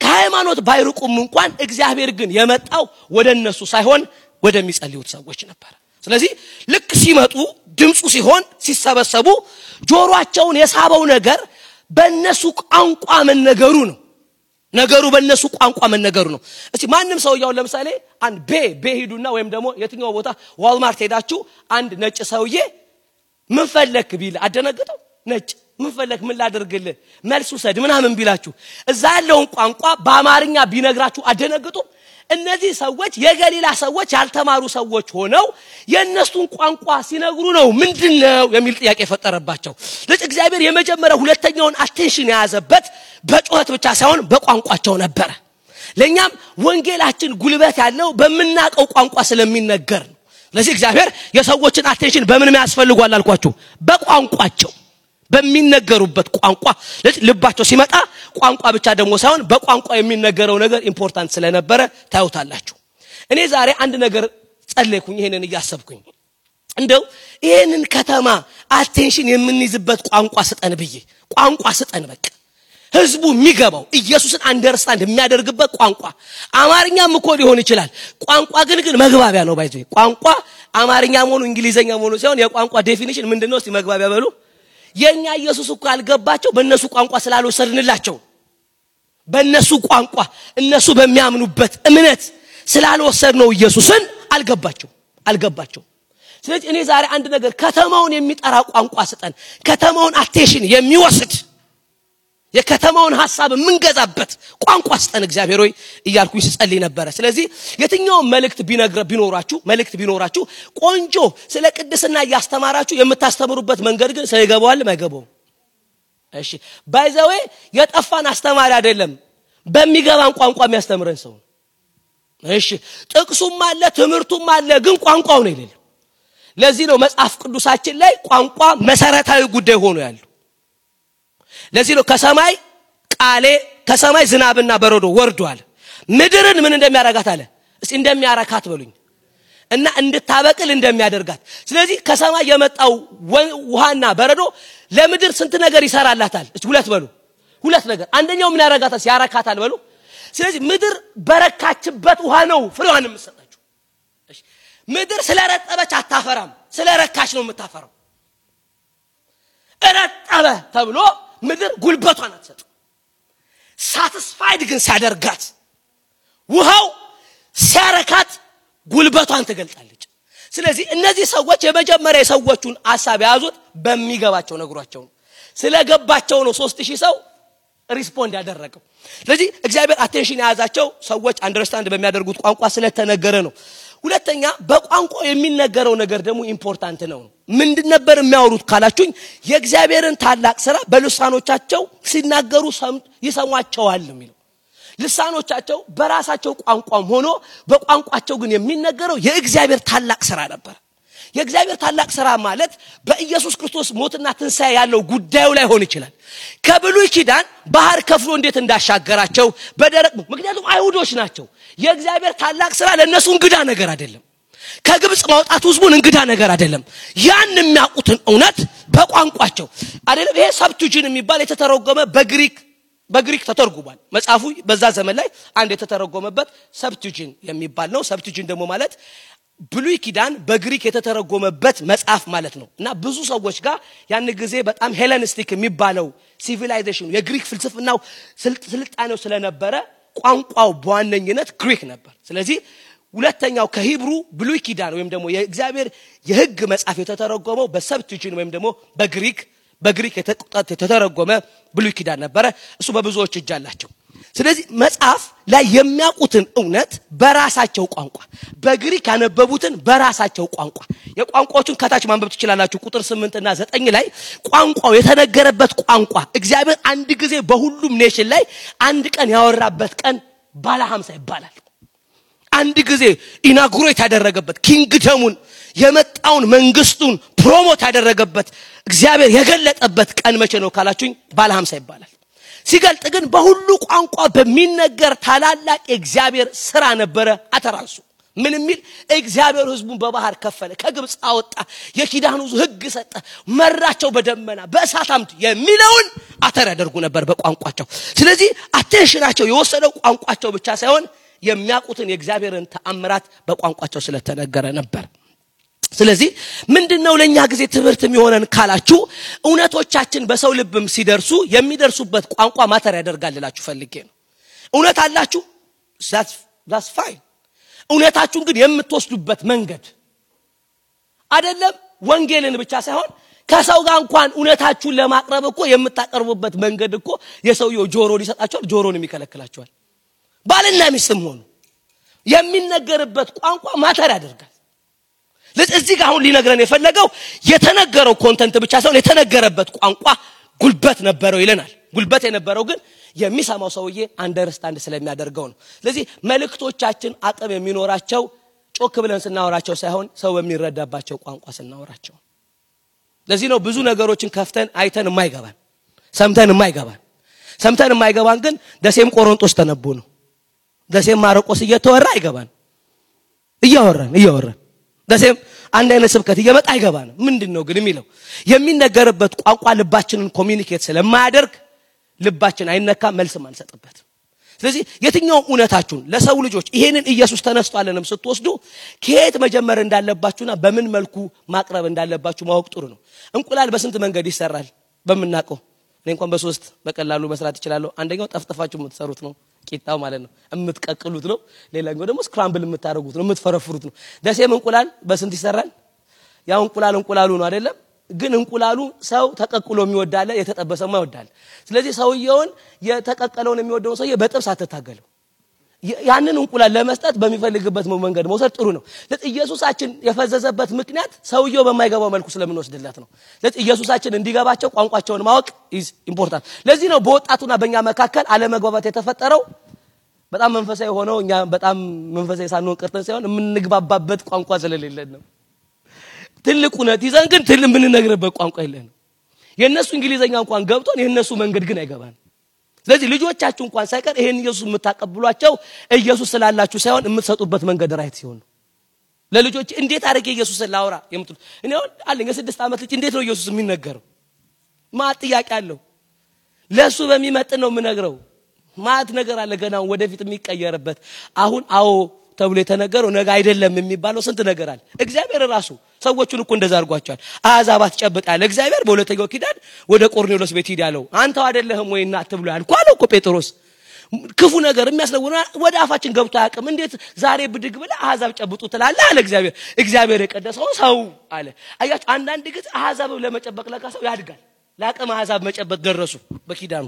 ከሃይማኖት ባይርቁም እንኳን እግዚአብሔር ግን የመጣው ወደነሱ ሳይሆን ወደሚጸልዩት ሰዎች ነበር። ስለዚህ ልክ ሲመጡ ድምጹ ሲሆን ሲሰበሰቡ ጆሮአቸውን የሳበው ነገር በእነሱ ቋንቋ መነገሩ ነው። ነገሩ በእነሱ ቋንቋ መነገሩ ነው። እስቲ ማንም ሰው ያው ለምሳሌ አንድ ሄዱና ወይም ደግሞ የትኛው ቦታ ዋልማርት ሄዳችሁ አንድ ነጭ ሰውዬ ምን ፈለክ ቢል አደነግጠው ነጭ ምን ፈለክ ምን ላደርግልህ መልሱ ሰድ ምናምን ቢላችሁ እዛ ያለውን ቋንቋ በአማርኛ ቢነግራችሁ አደነግጡ። እነዚህ ሰዎች የገሊላ ሰዎች ያልተማሩ ሰዎች ሆነው የነሱን ቋንቋ ሲነግሩ ነው ምንድነው የሚል ጥያቄ ፈጠረባቸው። ለእግዚአብሔር የመጀመሪያው ሁለተኛውን አቴንሽን ያዘበት በጮህት ብቻ ሳይሆን በቋንቋቸው ነበር። ለኛም ወንጌላችን ጉልበት ያለው በመናቀው ቋንቋ ስለሚነገር ነው። ለዚህ እግዚአብሔር የሰዎችን አቴንሽን በምን ያስፈልጓል አልኳችሁ? በቋንቋቸው በሚነገሩበት ቋንቋ ልባቸው ሲመጣ ቋንቋ ብቻ ደግሞ ሳይሆን በቋንቋ የሚነገረው ነገር ኢምፖርታንት ስለነበረ ታዩታላችሁ። እኔ ዛሬ አንድ ነገር ጸለይኩኝ ይሄንን እያሰብኩኝ እንደው ይሄንን ከተማ አቴንሽን የምንይዝበት ቋንቋ ስጠን ብዬ ቋንቋ ስጠን በቃ ህዝቡ የሚገባው ኢየሱስን አንደርስታንድ የሚያደርግበት ቋንቋ አማርኛም እኮ ሊሆን ይችላል። ቋንቋ ግን መግባቢያ ነው ባይዘይ ቋንቋ አማርኛ ሆኖ እንግሊዘኛ ሆኖ ሳይሆን የቋንቋ ዴፊኒሽን ምንድነው? እስቲ መግባቢያ በሉ። የኛ ኢየሱስ እኮ አልገባቸው በእነሱ ቋንቋ ስላልወሰድንላቸው በእነሱ ቋንቋ እነሱ በሚያምኑበት እምነት ስላልወሰድነው ኢየሱስን አልገባቸው። ስለዚህ እኔ ዛሬ አንድ ነገር ከተማውን የሚጠራ ቋንቋ ስጠን ከተማውን አቴንሽን የሚወስድ የከተማውን ሐሳብ ምንገዛበት ቋንቋ ስጠን እግዚአብሔር ሆይ እያልኩኝ ስጸልይ ነበር። ስለዚህ የትኛው መልእክት ቢኖራችሁ ቆንጆ ስለ ቅድስና ያስተማራችሁ የምታስተምሩበት መንገድ ግን ሳይገባዋል ማይገባው እሺ ባይ ዘ ዌይ የጠፋን አስተማሪ አይደለም በሚገባን ቋንቋ የሚያስተምረን ሰው እሺ ጥቅሱም አለ ትምርቱም አለ ግን ቋንቋው ነው የሌለው። ለዚህ ነው መጽሐፍ ቅዱሳችን ላይ ቋንቋ መሰረታዊ ጉዳይ ሆኖ ያለው። ለዚህ ነው ከሰማይ ዝናብና በረዶ ወርዷል ምድርን ምን እንደሚያረጋት አለ እስቲ እንደሚያረካት በሉኝ እና እንድታበቅል እንደሚያደርጋት። ስለዚህ ከሰማይ የመጣው ውሃና በረዶ ለምድር ስንት ነገር ይሰራላታል? እስቲ ሁለት ነገር አንደኛው ምን ያረጋታል? ያረካታል በሉ። ስለዚህ ምድር በረካችበት ውሃ ነው ፍሬዋን የምትሰጣችሁ። እሺ ምድር ስለረጠበች አታፈራም ስለረካች ነው የምታፈራው። እረጠበ ተብሎ ምድር ጉልበቷን አትሰጥ። ሳቲስፋይድ ግን ሲያደርጋት ውሃው ሲያረካት ጉልበቷን ትገልጣለች። ስለዚህ እነዚህ ሰዎች የመጀመሪያ የሰዎቹን ሐሳብ ያዙት በሚገባቸው ነግሯቸው ስለገባቸው ነው 3000 ሰው ሪስፖንድ ያደረገው። ስለዚህ እግዚአብሔር አቴንሽን ያዛቸው ሰዎች አንደርስታንድ በሚያደርጉት ቋንቋ ስለተነገረ ነው። ሁለተኛ በቋንቋው የሚነገረው ነገር ደግሞ ኢምፖርታንት ነው። ምንድን ነበር የሚያወሩት ካላችሁኝ የእግዚአብሔርን ታላቅ ሥራ በልሳኖቻቸው ሲናገሩ ይሰሟቸዋል የሚለው። ልሳኖቻቸው በራሳቸው ቋንቋም ሆኖ በቋንቋቸው ግን የሚነገረው የእግዚአብሔር ታላቅ ሥራ ነበር። የእግዚአብሔር ታላቅ ሥራ ማለት በኢየሱስ ክርስቶስ ሞትና ትንሳኤ ያለው ጉዳዩ ላይ ሆነ ይችላል። ከብሉይ ኪዳን ባህር ከፍሎ እንዴት እንዳሻገራቸው በደረቅ ምክንያቱም አይሁዶች ናቸው። የእግዚአብሔር ታላቅ ሥራ ለነሱ እንግዳ ነገር አይደለም። ከግብጽ ማውጣት ህዝቡን እንግዳ ነገር አይደለም። ያን የሚያውቁትን እውነት በቋንቋቸው አይደለም። ይሄ ሰብቱጂን የሚባል የተተረጎመ በግሪክ ተተርጉሟል። መጽሐፉ በዛ ዘመን ላይ አንድ የተተረጎመበት ሰብቱጂን የሚባል ነው። ሰብቱጂን ደግሞ ማለት ብሉይ ኪዳን በግሪክ የተተረጎመበት መጽሐፍ ማለት ነው እና ብዙ ሰዎች ጋር ያን ጊዜ በጣም ሄለኒስቲክ የሚባለው ሲቪላይዜሽን የግሪክ ፍልስፍናው ስልጣኔው ስለነበረ ቋንቋው በዋነኝነት ግሪክ ነበር ስለዚህ ሁለተኛው ከሂብሩ ብሉይ ኪዳን ወይም ደግሞ የእግዚአብሔር የሕግ መጽሐፍ የተተረጎመው በሰብቲዩሽን ወይም ደግሞ በግሪክ የተተረጎመ ብሉይ ኪዳን ነበር እሱ በብዙዎች እጅ አላቸው ስለዚህ መጽሐፍ ላይ የሚያውቁትን እውነት በራሳቸው ቋንቋ በግሪክ ያነበቡትን በራሳቸው ቋንቋ የቋንቋዎችን ከታች ማንበብ ትችላላችሁ ቁጥር 8 እና 9 ላይ ቋንቋው የተነገረበት ቋንቋ እግዚአብሔር አንድ ጊዜ በሁሉም ኔሽን ላይ አንድ ቀን ያወራበት ቀን ባለ 50 ይባላል አንድ ጊዜ ኢናጉሬት ያደረገበት ኪንግደሙን የመጣውን መንግስቱን ፕሮሞት ያደረገበት እግዚአብሔር የገለጠበት ቀን መቼ ነው ካላችሁኝ ባለ 50 ይባላል ሲገልጥ ግን በሁሉ ቋንቋ በሚነገር ታላላቅ እግዚአብሔር ሥራ ነበረ አተራሱ ምን የሚል እግዚአብሔር ህዝቡን በባህር ከፈለ ከግብጽ አወጣ የኪዳኑ ሕግ ሰጠ መራቸው በደመና በእሳት አምድ የሚለውን አተር ያደርጉ ነበር በቋንቋቸው ስለዚህ አቴንሽናቸው የወሰደው ቋንቋቸው ብቻ ሳይሆን የሚያውቁትን የእግዚአብሔርን ተአምራት በቋንቋቸው ስለተነገረ ነበር ስለዚህ ምንድነው ለኛ ጊዜ ትምህርት የሚሆነን ካላችሁ እውነቶቻችን በሰው ልብም ሲደርሱ የሚደርሱበት ቋንቋ ማተር ያደርጋልላችሁ ፈልጌ ነው እውነት አላችሁ that's fine እውነታችሁን ግን የምትወስዱበት መንገድ አይደለም ወንጌልን ብቻ ሳይሆን ከሰው ጋር እንኳን እውነታችሁን ለማቅረብ እኮ የምታቀርቡበት መንገድ እኮ የሰውየው ጆሮ ሊሰጣቸው ጆሮን የሚከለክላቸዋል ባልና ሚስትም ሆኑ የሚነገርበት ቋንቋ ማተር ያደርጋል ለዚህ ጋር አሁን ሊነግረን የፈለገው የተነገረው ኮንተንት ብቻ ሳይሆን የተነገረበት ቋንቋ ጉልበት ነበረው ይለናል ጉልበት የነበረው ግን የሚሰማው ሰውዬ አንደርስታንድ ስለሚያደርገው ነው ስለዚህ መልእክቶቻችን አቅም የሚኖራቸው ጮክ ብለን ስናወራቸው ሳይሆን ሰው በሚረዳባቸው ቋንቋ ስናወራቸው ለዚህ ነው ብዙ ነገሮችን ከፍተን አይተን የማይገባን ሰምተን የማይገባን ግን ደሴም ቆሮንቶስ ተነቦ ነው ደሴም ማርቆስ እየተወራ አይገባን እያወራን ደሴም አንድ አይነት ስብከት እየመጣ አይገባን ምንድነው ግን የሚለው የሚነገርበት ቋንቋ ልባችንን ኮሚኒኬት ስለማያደርግ ልባችን አይነካ መልስም አንሰጥበት ስለዚህ የትኛው እውነታችሁን ለሰው ልጆች ይሄንን ኢየሱስ ተነስቷልንም ስትወስዱ ከየት መጀመር እንዳለባችሁና በምን መልኩ ማቅረብ እንዳለባችሁ ማወቅ ጥሩ ነው እንቁላል በስንት መንገድ ይሰራል በመናቀው እኔ እንኳን በሶስት በቀላሉ መስራት ይችላልው አንደኛው ጠፍጥፋችሁ የምትሰሩት ነው ቂጣው ማለት ነው የምትቀቅሉት ነው ሌላኛው ደግሞ ስክራምብል የምታረጉት ነው የምትፈረፍሩት ነው ደሴም እንቁላል በስንት ይሰራል ያው እንቁላሉ ነው አይደለም ግን እንቁላሉ ሰው ተቀቅሎ የሚወዳለ የተጠበሰማ ይወዳል ስለዚህ ሰውየውን የተቀቀለውን የሚወደው ሰውዬ በጥብስ አትታገለው ያንን እንቁላል ለመስጠት በሚፈልግበት መንገድ መውሰድ ጥሩ ነው ለኢየሱሳችን የፈዘዘበት ምክንያት ሰውየው በማይገባው መልኩ ስለምንወስድለት ነው ለኢየሱሳችን እንዲገባቸው ቋንቋቸውን ማወቅ is important ለዚህ ነው በወጣቱና በእኛ መካከል አለመግባባት የተፈጠረው በጣም መንፈሳዊ ሆኖ እኛ በጣም መንፈሳዊ ሳንሆን ቀርተን ሳይሆን የምንግባባበት ቋንቋ ስለሌለን ነው ትልቁ ነው ይዘን ግን ምንነግርበት ቋንቋ የለንም የነሱ እንግሊዘኛ እንኳን ገብቶን የነሱ መንገድ ግን አይገባን ስለዚህ ልጆቻችሁ እንኳን ሳይቀር ይሄን ኢየሱስ የምታቀብሏቸው ኢየሱስ ስላላችሁ ሳይሆን የምትሰጡበት መንገድ ራይት ሲሆን ለልጆች እንዴት አድርጌ ኢየሱስን ላውራ የምትሉ እኔ አለኝ 6 ዓመት ልጅ እንዴት ነው ኢየሱስ የሚነገረው ማት ጥያቄ አለው ለሱ በሚመጥን ነው የምነግረው ማት ነገር አለ ገና ወደፊት የሚቀየርበት አሁን አዎ ተብሎ የተነገረው ነገ አይደለም የሚባለው ስንት ነገር አለ እግዚአብሔር ራሱ ሰዎቹን እኮ እንደዛ አርጓቸዋል አዛባት ጨብጣለ እግዚአብሔር በሁለተኛው ኪዳን ወደ ቆርኔሎስ ቤት ሄዳለው አንተው አይደለህም ወይ እናት ብሎ ያልኳለው እኮ ጴጥሮስ ክፉ ነገር የሚያስነውና ወደ አፋችን ገብቶ ያቀም እንዴት ዛሬ ብድግ ብለ አዛብ ጨብጡ ትላለህ አለ እግዚአብሔር የቀደሰው ሰው አለ አያችሁ አንዳንድ ጊዜ አዛብ ለመጨበቅ ለካሰው ያድጋል ላቀም አዛብ መጨበጥ ደረሱ በኪዳኑ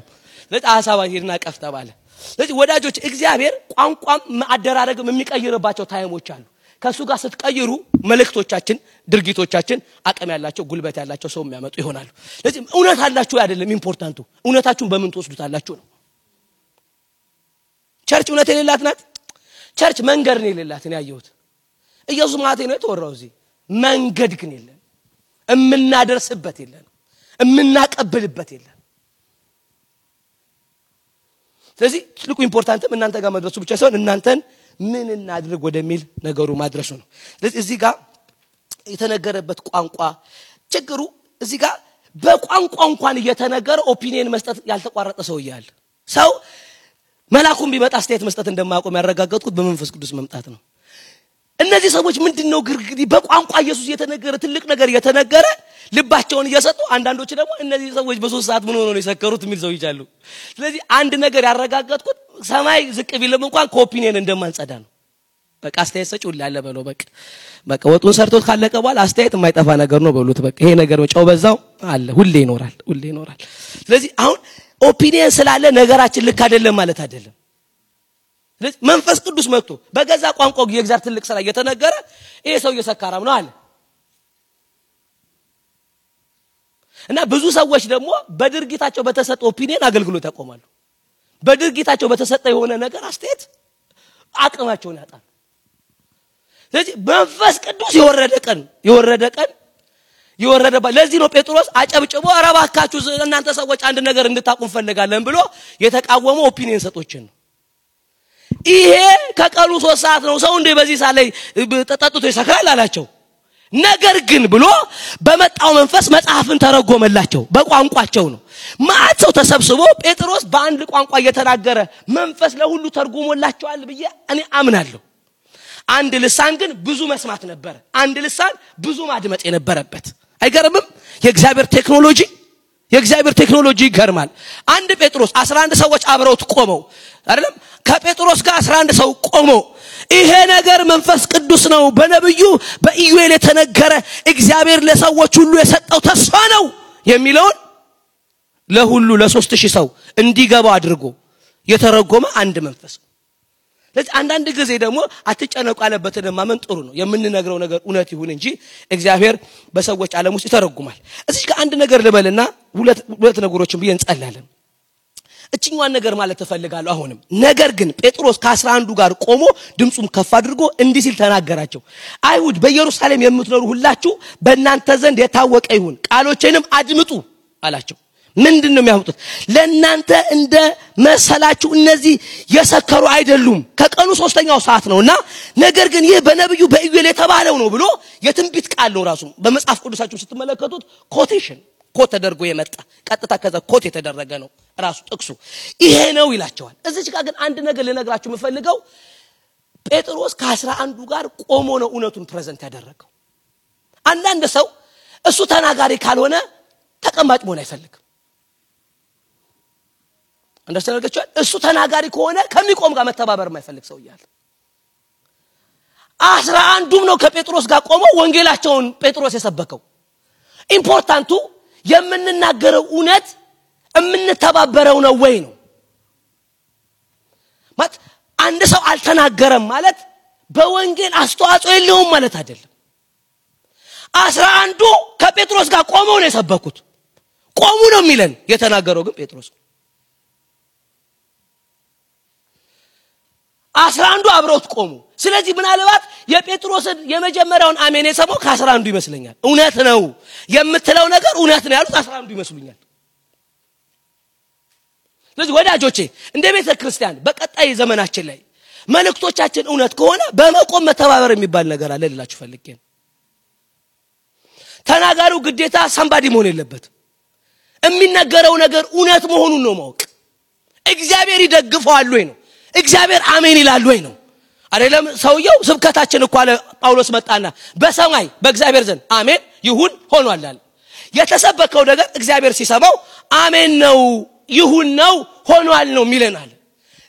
ለጣሳባ ሄድና ቀፍ ተባለ ስለዚህ ወዳጆች እግዚአብሔር ቋንቋም አደራረግም የሚቀይርባቸው ታይሞች አሉ ከሱ ጋር ስትቀይሩ መልእክቶቻችን ድርጊቶቻችን አቀም ያላቸው ጉልበት ያላቸው ሰው የሚያመጡ ይሆናሉ ስለዚህ እውነት አላችሁ አይደለም ኢምፖርታንቱ እውነታችሁን በምን ተወስዱታላችሁ ነው ቸርች እውነት የሌላት ናት ቸርች መንገድ ነው የሌላት ነው ያየሁት ኢየሱስ ማለት ነው የተወራው እዚህ መንገድ ግን የለም እምናደርስበት የለም እምናቀብልበት የለም ስለዚህ ትልቁ ኢምፖርታንትም እናንተ ጋር መድረሱ ብቻ ሳይሆን እናንተን ምን እናድርግ ወደሚል ነገሩ ማድረሱ ነው ስለዚህ እዚህ ጋር የተነገረበት ቋንቋ ችግሩ እዚህ ጋር በቋንቋ እንኳን እየተነገረ ኦፒኒየን መስጠት ያልተቋረጠ ሰው ይያል ሰው መላኩም ቢመጣ ስቴት መስጠት እንደማያቆም ያረጋግጥኩት በመንፈስ ቅዱስ መምጣት ነው እነዚህ ሰዎች ምንድነው ግርግሪ በቋንቋ ኢየሱስ የተነገረ ትልቅ ነገር የተነገረ ልባቸውን እየሰጡ አንዳንዶች ደግሞ እነዚህ ሰዎች በ3 ሰዓት ምን ሆኖ ነው የሰከሩት የሚል ሰው ይቻሉ ስለዚህ አንድ ነገር ያረጋጋጥኩት ሰማይ ዝቅ ቢልም እንኳን ኮፒኔን እንደማንጸዳ ነው በቃ አስተያየት ሰጪው ላለ በለው በቃ ወጡን ሰርቶት ካለቀ በኋላ አስተያየት የማይጠፋ ነገር ነው በሉት በቃ ይሄ ነገር ጨው በዛው አለ ሁሌ ይኖራል ስለዚህ አሁን ኦፒኒየን ስላለ ነገራችን ልክ አይደለም ማለት አይደለም ስለዚህ መንፈስ ቅዱስ መጥቶ በገዛ ቋንቋው የእግዚአብሔር ትልቅ ስራ እየተነገረ ይሄ ሰው እየሰካራም ነው አለ እና ብዙ ሰዎች ደግሞ በድርጊታቸው በተሰጠ ኦፒኒየን አገልግሎት ያቆማሉ በድርጊታቸው በተሰጠ የሆነ ነገር አስተያየት አቅማቸውን ያጣሉ ስለዚህ መንፈስ ቅዱስ የወረደ ለዚህ ነው ጴጥሮስ አጨብጭቦ አረባካችሁ እናንተ ሰዎች አንድ ነገር እንድታቁም ፈልጋለን ብሎ የተቃወመው ኦፒኒየን ሰጦችን ነው ይሄ ከቀኑ 3 ሰዓት ነው ሰው እንደ በዚህ ሰዓት ላይ ተጠጥቶ ይሰክራል አላቸው ነገር ግን ብሎ በመጣው መንፈስ መጽሐፍን ተረጎመላቸው በቋንቋቸው ነው ማአቸው ተሰብስቦ ጴጥሮስ በአንድ ቋንቋ እየተናገረ መንፈስ ለሁሉ ተርጉሞላቸዋል ብዬ እኔ አምናለሁ አንድ ልሳን ግን ብዙ መስማት ነበር አንድ ልሳን ብዙ ማድመጥ የነበረበት አይገርምም የእግዚአብሔር ቴክኖሎጂ ይገርማል አንድ ጴጥሮስ 11 ሰዎች አብረውት ቆመው አይደለም ከጴጥሮስ ጋር 11 ሰው ቆሞ ይሄ ነገር መንፈስ ቅዱስ ነው በነብዩ በኢዩኤል የተነገረ እግዚአብሔር ለሰዎች ሁሉ የሰጠው ተስፋ ነው የሚለውን ለሁሉ ለ3000 ሰው እንዲገባው አድርጎ የተረጎመ አንድ መንፈስ ስለዚህ አንዳንድ ጊዜ ደግሞ አትጨነቁ አለበትን ማመን ጥሩ ነው የምንነግረው ነገር እውነት ይሁን እንጂ እግዚአብሔር በሰዎች ዓለም ውስጥ ይተረጉማል እዚህ ጋር አንድ ነገር ልበልና ሁለት ነገሮችን ብዬ እንጸልያለን እቺኛዋን ነገር ማለት ተፈልጋለሁ አሁንም ነገር ግን ጴጥሮስ ከ11 ጋር ቆሞ ድምጹን ከፍ አድርጎ እንዲህ ሲል ተናገራቸው አይሁድ በኢየሩሳሌም የምትኖሩ ሁላችሁ በእናንተ ዘንድ የታወቀ ይሁን ቃሎቼንም አድምጡ አላቸው ምንድነው የሚያወጡት ለእናንተ እንደ መሰላችሁ እነዚህ የሰከሩ አይደሉም ከቀኑ 3ኛው ሰዓት ነውና ነገር ግን ይህ በነብዩ በኢዩኤል የተባለው ነው ብሎ የትንቢት ቃል ነው ራሱ በመጽሐፍ ቅዱሳችሁ ስትመለከቱት ኮት ተደርጎ የመጣ ቀጥታ ከዛ ኮት የተደረገ ነው ራሱ ጥቅሱ ይሄ ነው ይላቸዋል እዚህ ጋር ግን አንድ ነገር ልነግራችሁ የምፈልገው ጴጥሮስ ከ11 ጋር ቆሞ ነው እውነቱን ፕሬዘንት ያደረገው አንዳንድ ሰው እሱ ተናጋሪ ካልሆነ ተቀማጭ መሆን አይፈልግም እንደሰነገቻው እሱ ተናጋሪ ከሆነ ከሚቆም ጋር መተባበር የማይፈልግ ሰው ይያል 11ዱም ነው ከጴጥሮስ ጋር ቆመው ወንጌላቸውን ጴጥሮስ የሰበከው ኢምፖርታንቱ የምንናገረው እውነት የምንተባበረው ነው ወይ ነው ማለት አንድ ሰው አልተናገረም ማለት በወንጌል አስተዋጽኦ የለውም ማለት አይደለም 11ዱ ከጴጥሮስ ጋር ቆመው ነው የሰበኩት ቆሙ ነው የሚለን የተናገረው ግን ጴጥሮስ 11ዱ አብረውት ቆሙ ስለዚህ ምናልባት የጴጥሮስን የመጀመሪያውን አሜን የሰማው ከ11ዱ ይመስለኛል እውነት ነው የምትለው ነገር እውነት ነው ያሉት 11ዱ ይመስሉኛል ስለዚህ ወዳጆቼ እንደ ቤተ ክርስቲያን በቀጣይ ዘመናችን ላይ መልእክቶቻችን እውነት ከሆነ በመቆም መተባበር የሚባል ነገር አለ ልላችሁ ፈልጌ ነው ተናጋሪው ግዴታ ሰምባዲ መሆን የለበት የሚነገረው ነገር እውነት መሆኑን ነው ማወቅ እግዚአብሔር ይደግፈዋል ወይ ነው እግዚአብሔር አሜን ይላል ወይ ነው አይደለም ሰውየው ስብከታችን እኮ አለ ጳውሎስ መጣና በሰማይ በእግዚአብሔር ዘንድ አሜን ይሁን ሆኗል አለ የተሰበከው ነገር እግዚአብሔር ሲሰማው አሜን ነው ይሁን ነው ሆኗል ነው ሚለናል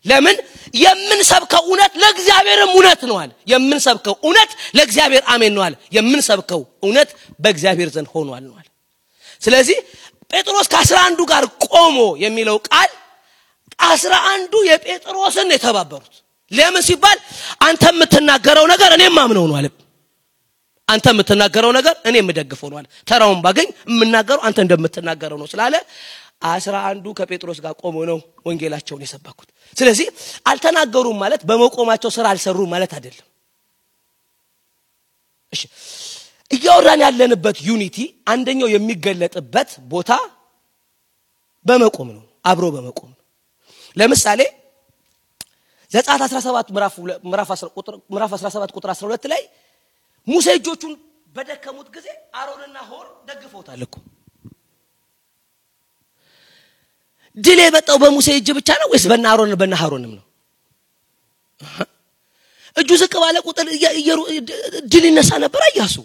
ለምን የምንሰብከው እውነት ለእግዚአብሔርም እውነት ነው አለ የምንሰብከው እውነት ለእግዚአብሔር አሜን ነው አለ የምንሰብከው እውነት በእግዚአብሔር ዘንድ ሆኗል ነው አለ ስለዚህ ጴጥሮስ ከ11 ጋር ቆሞ የሚለው ቃል 11ዱ የጴጥሮስን የተባበሩት ለምን ሲባል አንተ የምትናገረው ነገር እኔም ማምነው ነው አለ አንተ የምትናገረው ነገር እኔም ደግፈው ነው አለ ተራውን ባገኝ የምናገረው አንተ እንደምትናገረው ነው ስላለ 11ዱ ከጴጥሮስ ጋር ቆሞ ነው ወንጌላቸውን የሰበኩት ስለዚህ አልተናገሩም ማለት በመቆማቸው ስራ አልሰሩም ማለት አይደለም እሺ እያወራን ያለንበት ዩኒቲ አንደኛው የሚገለጥበት ቦታ በመቆም ነው አብሮ በመቆም ነው ለምሳሌ ዘጸአት 17 ምዕራፍ 17 ቁጥር 12 ላይ ሙሴ እጆቹን በደከሙት ጊዜ አሮንና ሆር ደግፈውታል እኮ ድል የመጣው በሙሴ እጅ ብቻ ነው ወይስ በአሮን በአሮንም ነው እጁ ዝቅ ባለ ቁጥር ድል ይነሳ ነበር ኢያሱ።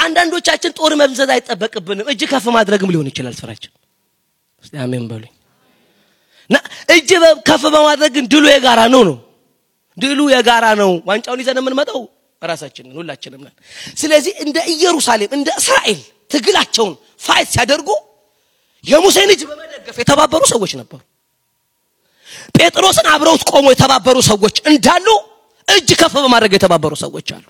አንዳንዶቻችን ጦር መምዘዝ አይጠበቅብንም እጅ ከፍ ማድረግም ሊሆን ይችላል ስራችን። እስቲ አሜን በሉኝ። እጅ ከፍ በማድረግ ድሉ የጋራ ነው። ድሉ የጋራ ነው። ዋንጫውን ይዘን የምንመጣው ራሳችንን ሁላችንም ነን። ስለዚህ እንደ ኢየሩሳሌም እንደ እስራኤል ትግላቸውን ፋይት ሲያደርጉ የሙሴን እጅ በመደገፍ የተባበሩ ሰዎች ነበሩ። ጴጥሮስን አብረውት ቆሞ የተባበሩ ሰዎች እንዳሉ እጅ ከፍ በማድረግ የተባበሩ ሰዎች አሉ።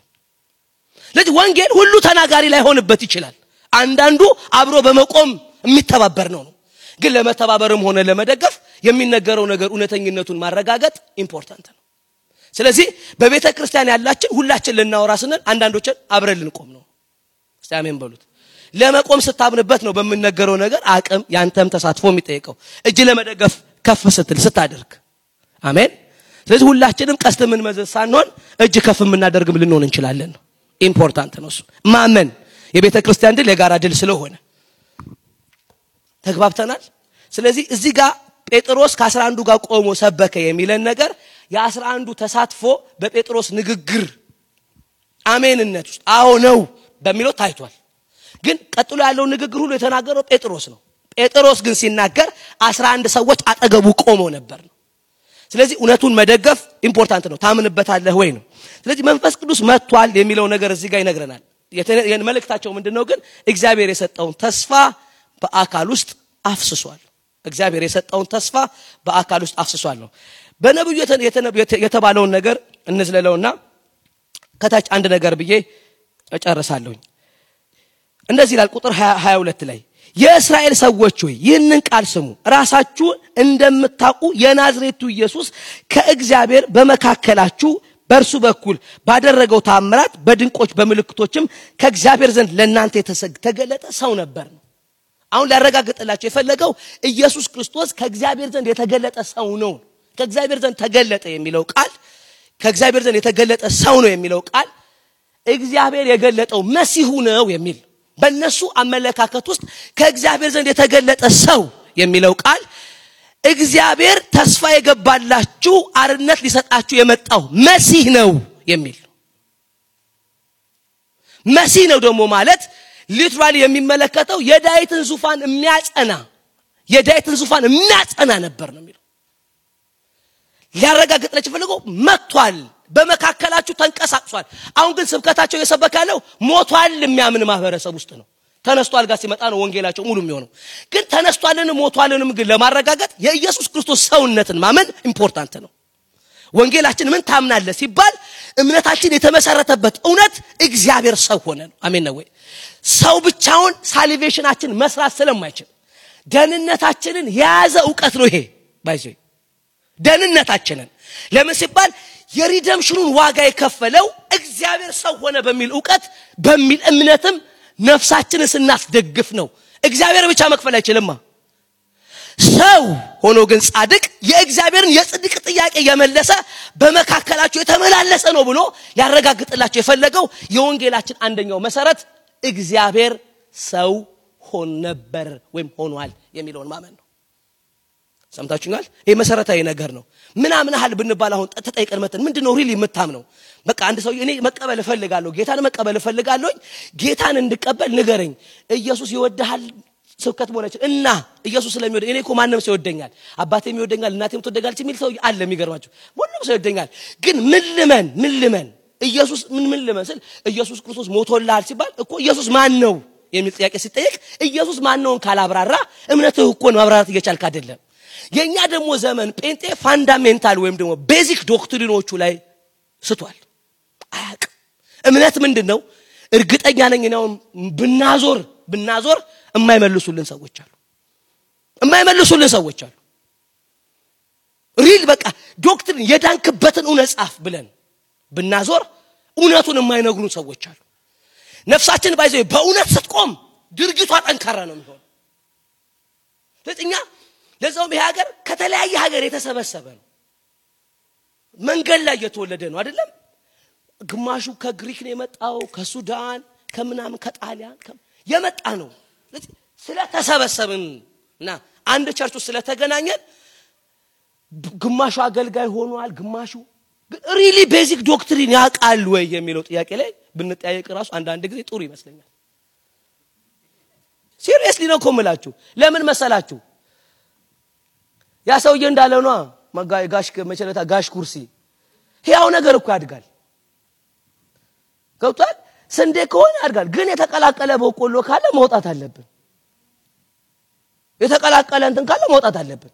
ስለዚህ ወንጌል ሁሉ ተናጋሪ ላይ ሆንበት ይችላል። አንዳንዱ አብሮ በመቆም የሚተባበር ነው። ግን ለመተባበርም ሆነ ለመደገፍ የሚነገረው ነገር እውነተኝነቱን ማረጋገጥ ኢምፖርታንት ነው። ስለዚህ በቤተ ክርስቲያን ያላችን ሁላችን ልናወራ ስንል አንዳንዶችን አብረን ልንቆም ነው። እስቲ አሜን በሉት። ለመቆም ስታምንበት ነው በሚነገረው ነገር አቅም ያንተም ተሳትፎ የሚጠይቀው እጅ ለመደገፍ ከፍ ስትል ስታደርግ። አሜን። ስለዚህ ሁላችንም ቀስት ምን መዘዝ ሳንሆን እጅ ከፍ የምናደርግም ልንሆን እንችላለን። ኢምፖርታንት ነው እሱ ማመን። የቤተ ክርስቲያን ድል የጋራ ድል ስለሆነ ተግባብተናል። ስለዚህ እዚህ ጋር ጴጥሮስ ከ11 ጋር ቆሞ ሰበከ የሚለን ነገር የ11 ተሳትፎ በጴጥሮስ ንግግር አሜንነት ውስጥ አዎ ነው በሚለው ታይቷል። ግን ቀጥሎ ያለው ንግግር ሁሉ የተናገረው ጴጥሮስ ነው። ጴጥሮስ ግን ሲናገር 11 ሰዎች አጠገቡ ቆሞ ነበር ነው። ስለዚህ እውነቱን መደገፍ ኢምፖርታንት ነው። ታምንበታለህ ወይ ነው። ስለዚህ መንፈስ ቅዱስ መጥቷል የሚለው ነገር እዚህ ጋር ይነግረናል። መልእክታቸው ምንድነው? ግን እግዚአብሔር የሰጠውን ተስፋ በአካል ውስጥ አፍስሷል። እግዚአብሔር የሰጠውን ተስፋ በአካል ውስጥ አፍስሷል ነው። በነብዩ የተባለውን ነገር እንዝለለውና ከታች አንድ ነገር ብዬ እጨርሳለሁኝ። እንደዚህ ይላል ቁጥር 22 ላይ የእስራኤል ሰዎች ሆይ ይህንን ቃል ስሙ። ራሳችሁ እንደምታውቁ የናዝሬቱ ኢየሱስ ከእግዚአብሔር በመካከላችሁ በእርሱ በኩል ባደረገው ተአምራት በድንቆች በምልክቶችም ከእግዚአብሔር ዘንድ ለእናንተ የተገለጠ ሰው ነበር ነው። አሁን ሊያረጋግጥላችሁ የፈለገው ኢየሱስ ክርስቶስ ከእግዚአብሔር ዘንድ የተገለጠ ሰው ነው። ከእግዚአብሔር ዘንድ ተገለጠ የሚለው ቃል ከእግዚአብሔር ዘንድ የተገለጠ ሰው ነው የሚለው ቃል እግዚአብሔር የገለጠው መሲሁ ነው የሚል በእነሱ አመለካከት ውስጥ ከእግዚአብሔር ዘንድ የተገለጠ ሰው የሚለው ቃል እግዚአብሔር ተስፋ የገባላችሁ አርነት ሊሰጣችሁ የመጣው መሲህ ነው የሚል መሲህ ነው ደግሞ ማለት ሊትራሊ የሚመለከተው የዳዊትን ዙፋን የሚያጸና ነበር ነው የሚለው። ሊያረጋግጥላችሁ ፈልገው መጥቷል፣ በመካከላችሁ ተንቀሳቅሷል። አሁን ግን ስብከታቸው የሰበካለው ሞቷል የሚያምን ማህበረሰብ ውስጥ ነው። ተነስቷል ጋር ሲመጣ ነው ወንጌላቸው ሙሉ የሚሆነው። ግን ተነስቷልን ሞቷልንም ግን ለማረጋገጥ የኢየሱስ ክርስቶስ ሰውነትን ማመን ኢምፖርታንት ነው። ወንጌላችን ምን ታምናለህ ሲባል እምነታችን የተመሰረተበት እውነት እግዚአብሔር ሰው ሆነ ነው። አሜን ነው ወይ? ሰው ብቻውን ሳልቬሽናችን መስራት ስለማይችል ደህንነታችንን የያዘ ዕውቀት ነው ይሄ ባይዘ ደህንነታችንን ለምን ሲባል የሪደምሽኑን ዋጋ የከፈለው እግዚአብሔር ሰው ሆነ በሚል ዕውቀት በሚል እምነትም ነፍሳችንን ስናስደግፍ ነው። እግዚአብሔር ብቻ መክፈል አይችልም። ሰው ሆኖ ግን ጻድቅ የእግዚአብሔርን የጽድቅ ጥያቄ የመለሰ በመካከላቸው የተመላለሰ ነው ብሎ ያረጋግጥላችሁ የፈለገው የወንጌላችን አንደኛው መሰረት እግዚአብሔር ሰው ሆኖ ነበር ወይም ሆኗል የሚለውን ማመን ነው። ሰምታችሁኛል? ይሄ መሰረታዊ ነገር ነው። ምናምንሃል ብንባል አሁን ተጠይቀን መተን ምንድነው ሪሊ የምታምነው? በቃ አንድ ሰው እኔ መቀበል እፈልጋለሁ ጌታን መቀበል እፈልጋለሁ ጌታን እንድቀበል ንገረኝ። ኢየሱስ ይወድሃል ስብከት ሆነች እና ኢየሱስ ስለሚወድ እኔ እኮ ማንንም ሰው ይወደኛል አባቴም ይወደኛል እናቴም ትወደኛለች የሚል ሰው አለ። የሚገርማችሁ ሁሉም ሰው ይወደኛል። ግን ምን ልመን ኢየሱስ ምን ልመን ስል ኢየሱስ ክርስቶስ ሞቶልሃል ሲባል እኮ ኢየሱስ ማን ነው የሚል ጥያቄ ሲጠየቅ ኢየሱስ ማን ነው ካላብራራ እምነትህ እኮ ነው ማብራራት እየቻልክ አይደለም። የኛ ደግሞ ዘመን ጴንጤ ፋንዳሜንታል ወይም ደግሞ ቤዚክ ዶክትሪኖቹ ላይ ስቷል። አያቅ እምነት ምንድነው? እርግጠኛ ነኝ ነው ብናዞር የማይመልሱልን ሰዎች አሉ። ሪል በቃ ዶክትሪን የዳንክበትን እውነት ጻፍ ብለን ብናዞር እውነቱን የማይነግሩን ሰዎች አሉ። ነፍሳችን ባይዘው በእውነት ስትቆም ድርጊቷ ጠንካራ ነው የሚሆነው። ለጥኛ ለዛውም ይሄ ሀገር ከተለያየ ሀገር የተሰበሰበ ነው። መንገድ ላይ የተወለደ ነው አይደለም። ግማሹ ከግሪክ ነው የመጣው፣ ከሱዳን፣ ከምናምን ከጣሊያን የመጣ ነው። ስለተሰበሰብንና አንድ ቸርች ውስጥ ስለተገናኘን ግማሹ አገልጋይ ሆኗል፣ ግማሹ ግን ሪሊ ቤዚክ ዶክትሪን ያውቃል ወይ የሚለው ጥያቄ ላይ ብንጠያየቅ ራሱ አንድ ጊዜ ጥሩ ይመስለኛል። ሲሪየስሊ ነው ኮምላችሁ። ለምን መሰላችሁ? ያ ሰውዬ እንዳለው ነው ጋሽ መቸለታ ጋሽ ኩርሲ ያው ነገር እኮ ያድጋል። ገብቷል? ስንዴ ከሆነ ያድጋል። ግን የተቀላቀለ በቆሎ ካለ መውጣት አለብን። የተቀላቀለ እንትን ካለ መውጣት አለብን።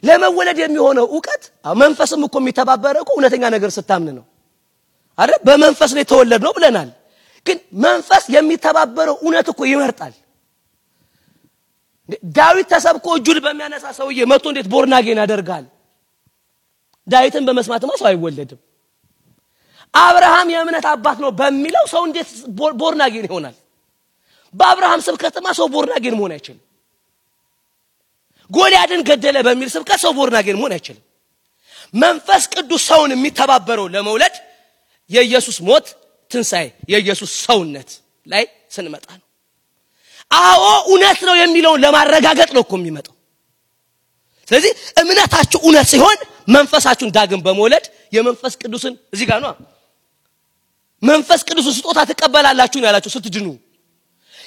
ለመወለድ የሚሆነው ዕውቀት መንፈስም እኮ የሚተባበረው እውነተኛ ነገር ስታምን ነው አይደል? በመንፈስ ነው የተወለድነው ብለናል። ግን መንፈስ የሚተባበረው እውነት እኮ ይመርጣል። ዳዊት ተሰብኮ እጁን በሚያነሳ ሰውዬ መጥቶ እንዴት ቦርናጌን ያደርጋል? ዳዊትን በመስማትማ ሰው አይወለድም። አብርሃም የእምነት አባት ነው በሚለው ሰው እንዴት ቦርናጌን ይሆናል? በአብርሃም ስብከትማ ሰው ቦርናጌን መሆን አይችልም። ጎልያድን ገደለ በሚል ስብከት ሰው ቦርናጌን መሆን አይችልም። መንፈስ ቅዱስ ሰውን የሚተባበረው ለመውለድ የኢየሱስ ሞት ትንሳኤ የኢየሱስ ሰውነት ላይ ስንመጣ ነው። አዎ እውነት ነው የሚለውን ለማረጋገጥ ነው እኮ የሚመጣው። ስለዚህ እምነታችሁ እውነት ሲሆን መንፈሳችሁን ዳግም በመውለድ የመንፈስ ቅዱስን እዚህ ጋር ነው መንፈስ ቅዱስ ስጦታ ተቀበላላችሁ ነው ያላችሁ ስትድኑ።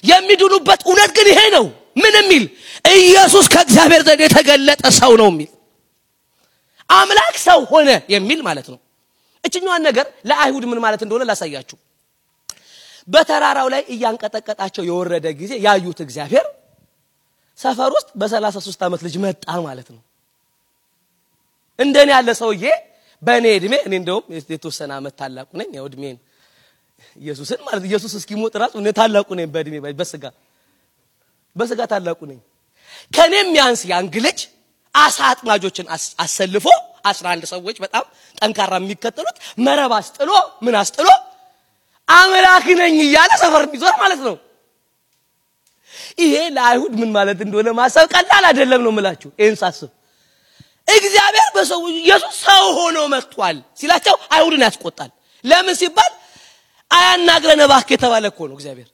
የሚድኑበት እውነት ግን ይሄ ነው። ምን የሚል ኢየሱስ ከእግዚአብሔር ዘንድ የተገለጠ ሰው ነው የሚል አምላክ ሰው ሆነ የሚል ማለት ነው። እችኛዋን ነገር ለአይሁድ ምን ማለት እንደሆነ ላሳያችሁ። በተራራው ላይ እያንቀጠቀጣቸው የወረደ ጊዜ ያዩት እግዚአብሔር ሰፈር ውስጥ በ33 ዓመት ልጅ መጣ ማለት ነው። እንደኔ ያለ ሰውዬ በኔ እድሜ እኔ እንደውም የተወሰነ ዓመት ታላቁ ነኝ። ያው እድሜን ኢየሱስን ማለት ኢየሱስ እስኪሞት ራሱ እኔ ታላቁ ነኝ በእድሜ በስጋ ታላቁ ነኝ። ከኔም ያንስ ያንግ ልጅ አሳ አጥማጆችን አሰልፎ 11 ሰዎች በጣም ጠንካራ የሚከተሉት መረብ አስጥሎ ምን አስጥሎ አምላክ ነኝ እያለ ሰፈር የሚዞር ማለት ነው። ይሄ ለአይሁድ ምን ማለት እንደሆነ ማሰብ ቀላል አይደለም ነው የምላችሁ። ይሄን ሳስብ እግዚአብሔር በሰው ኢየሱስ ሰው ሆኖ መጥቷል ሲላቸው አይሁድን ያስቆጣል። ለምን ሲባል አያናግረን እባክህ የተባለ እኮ ነው እግዚአብሔር።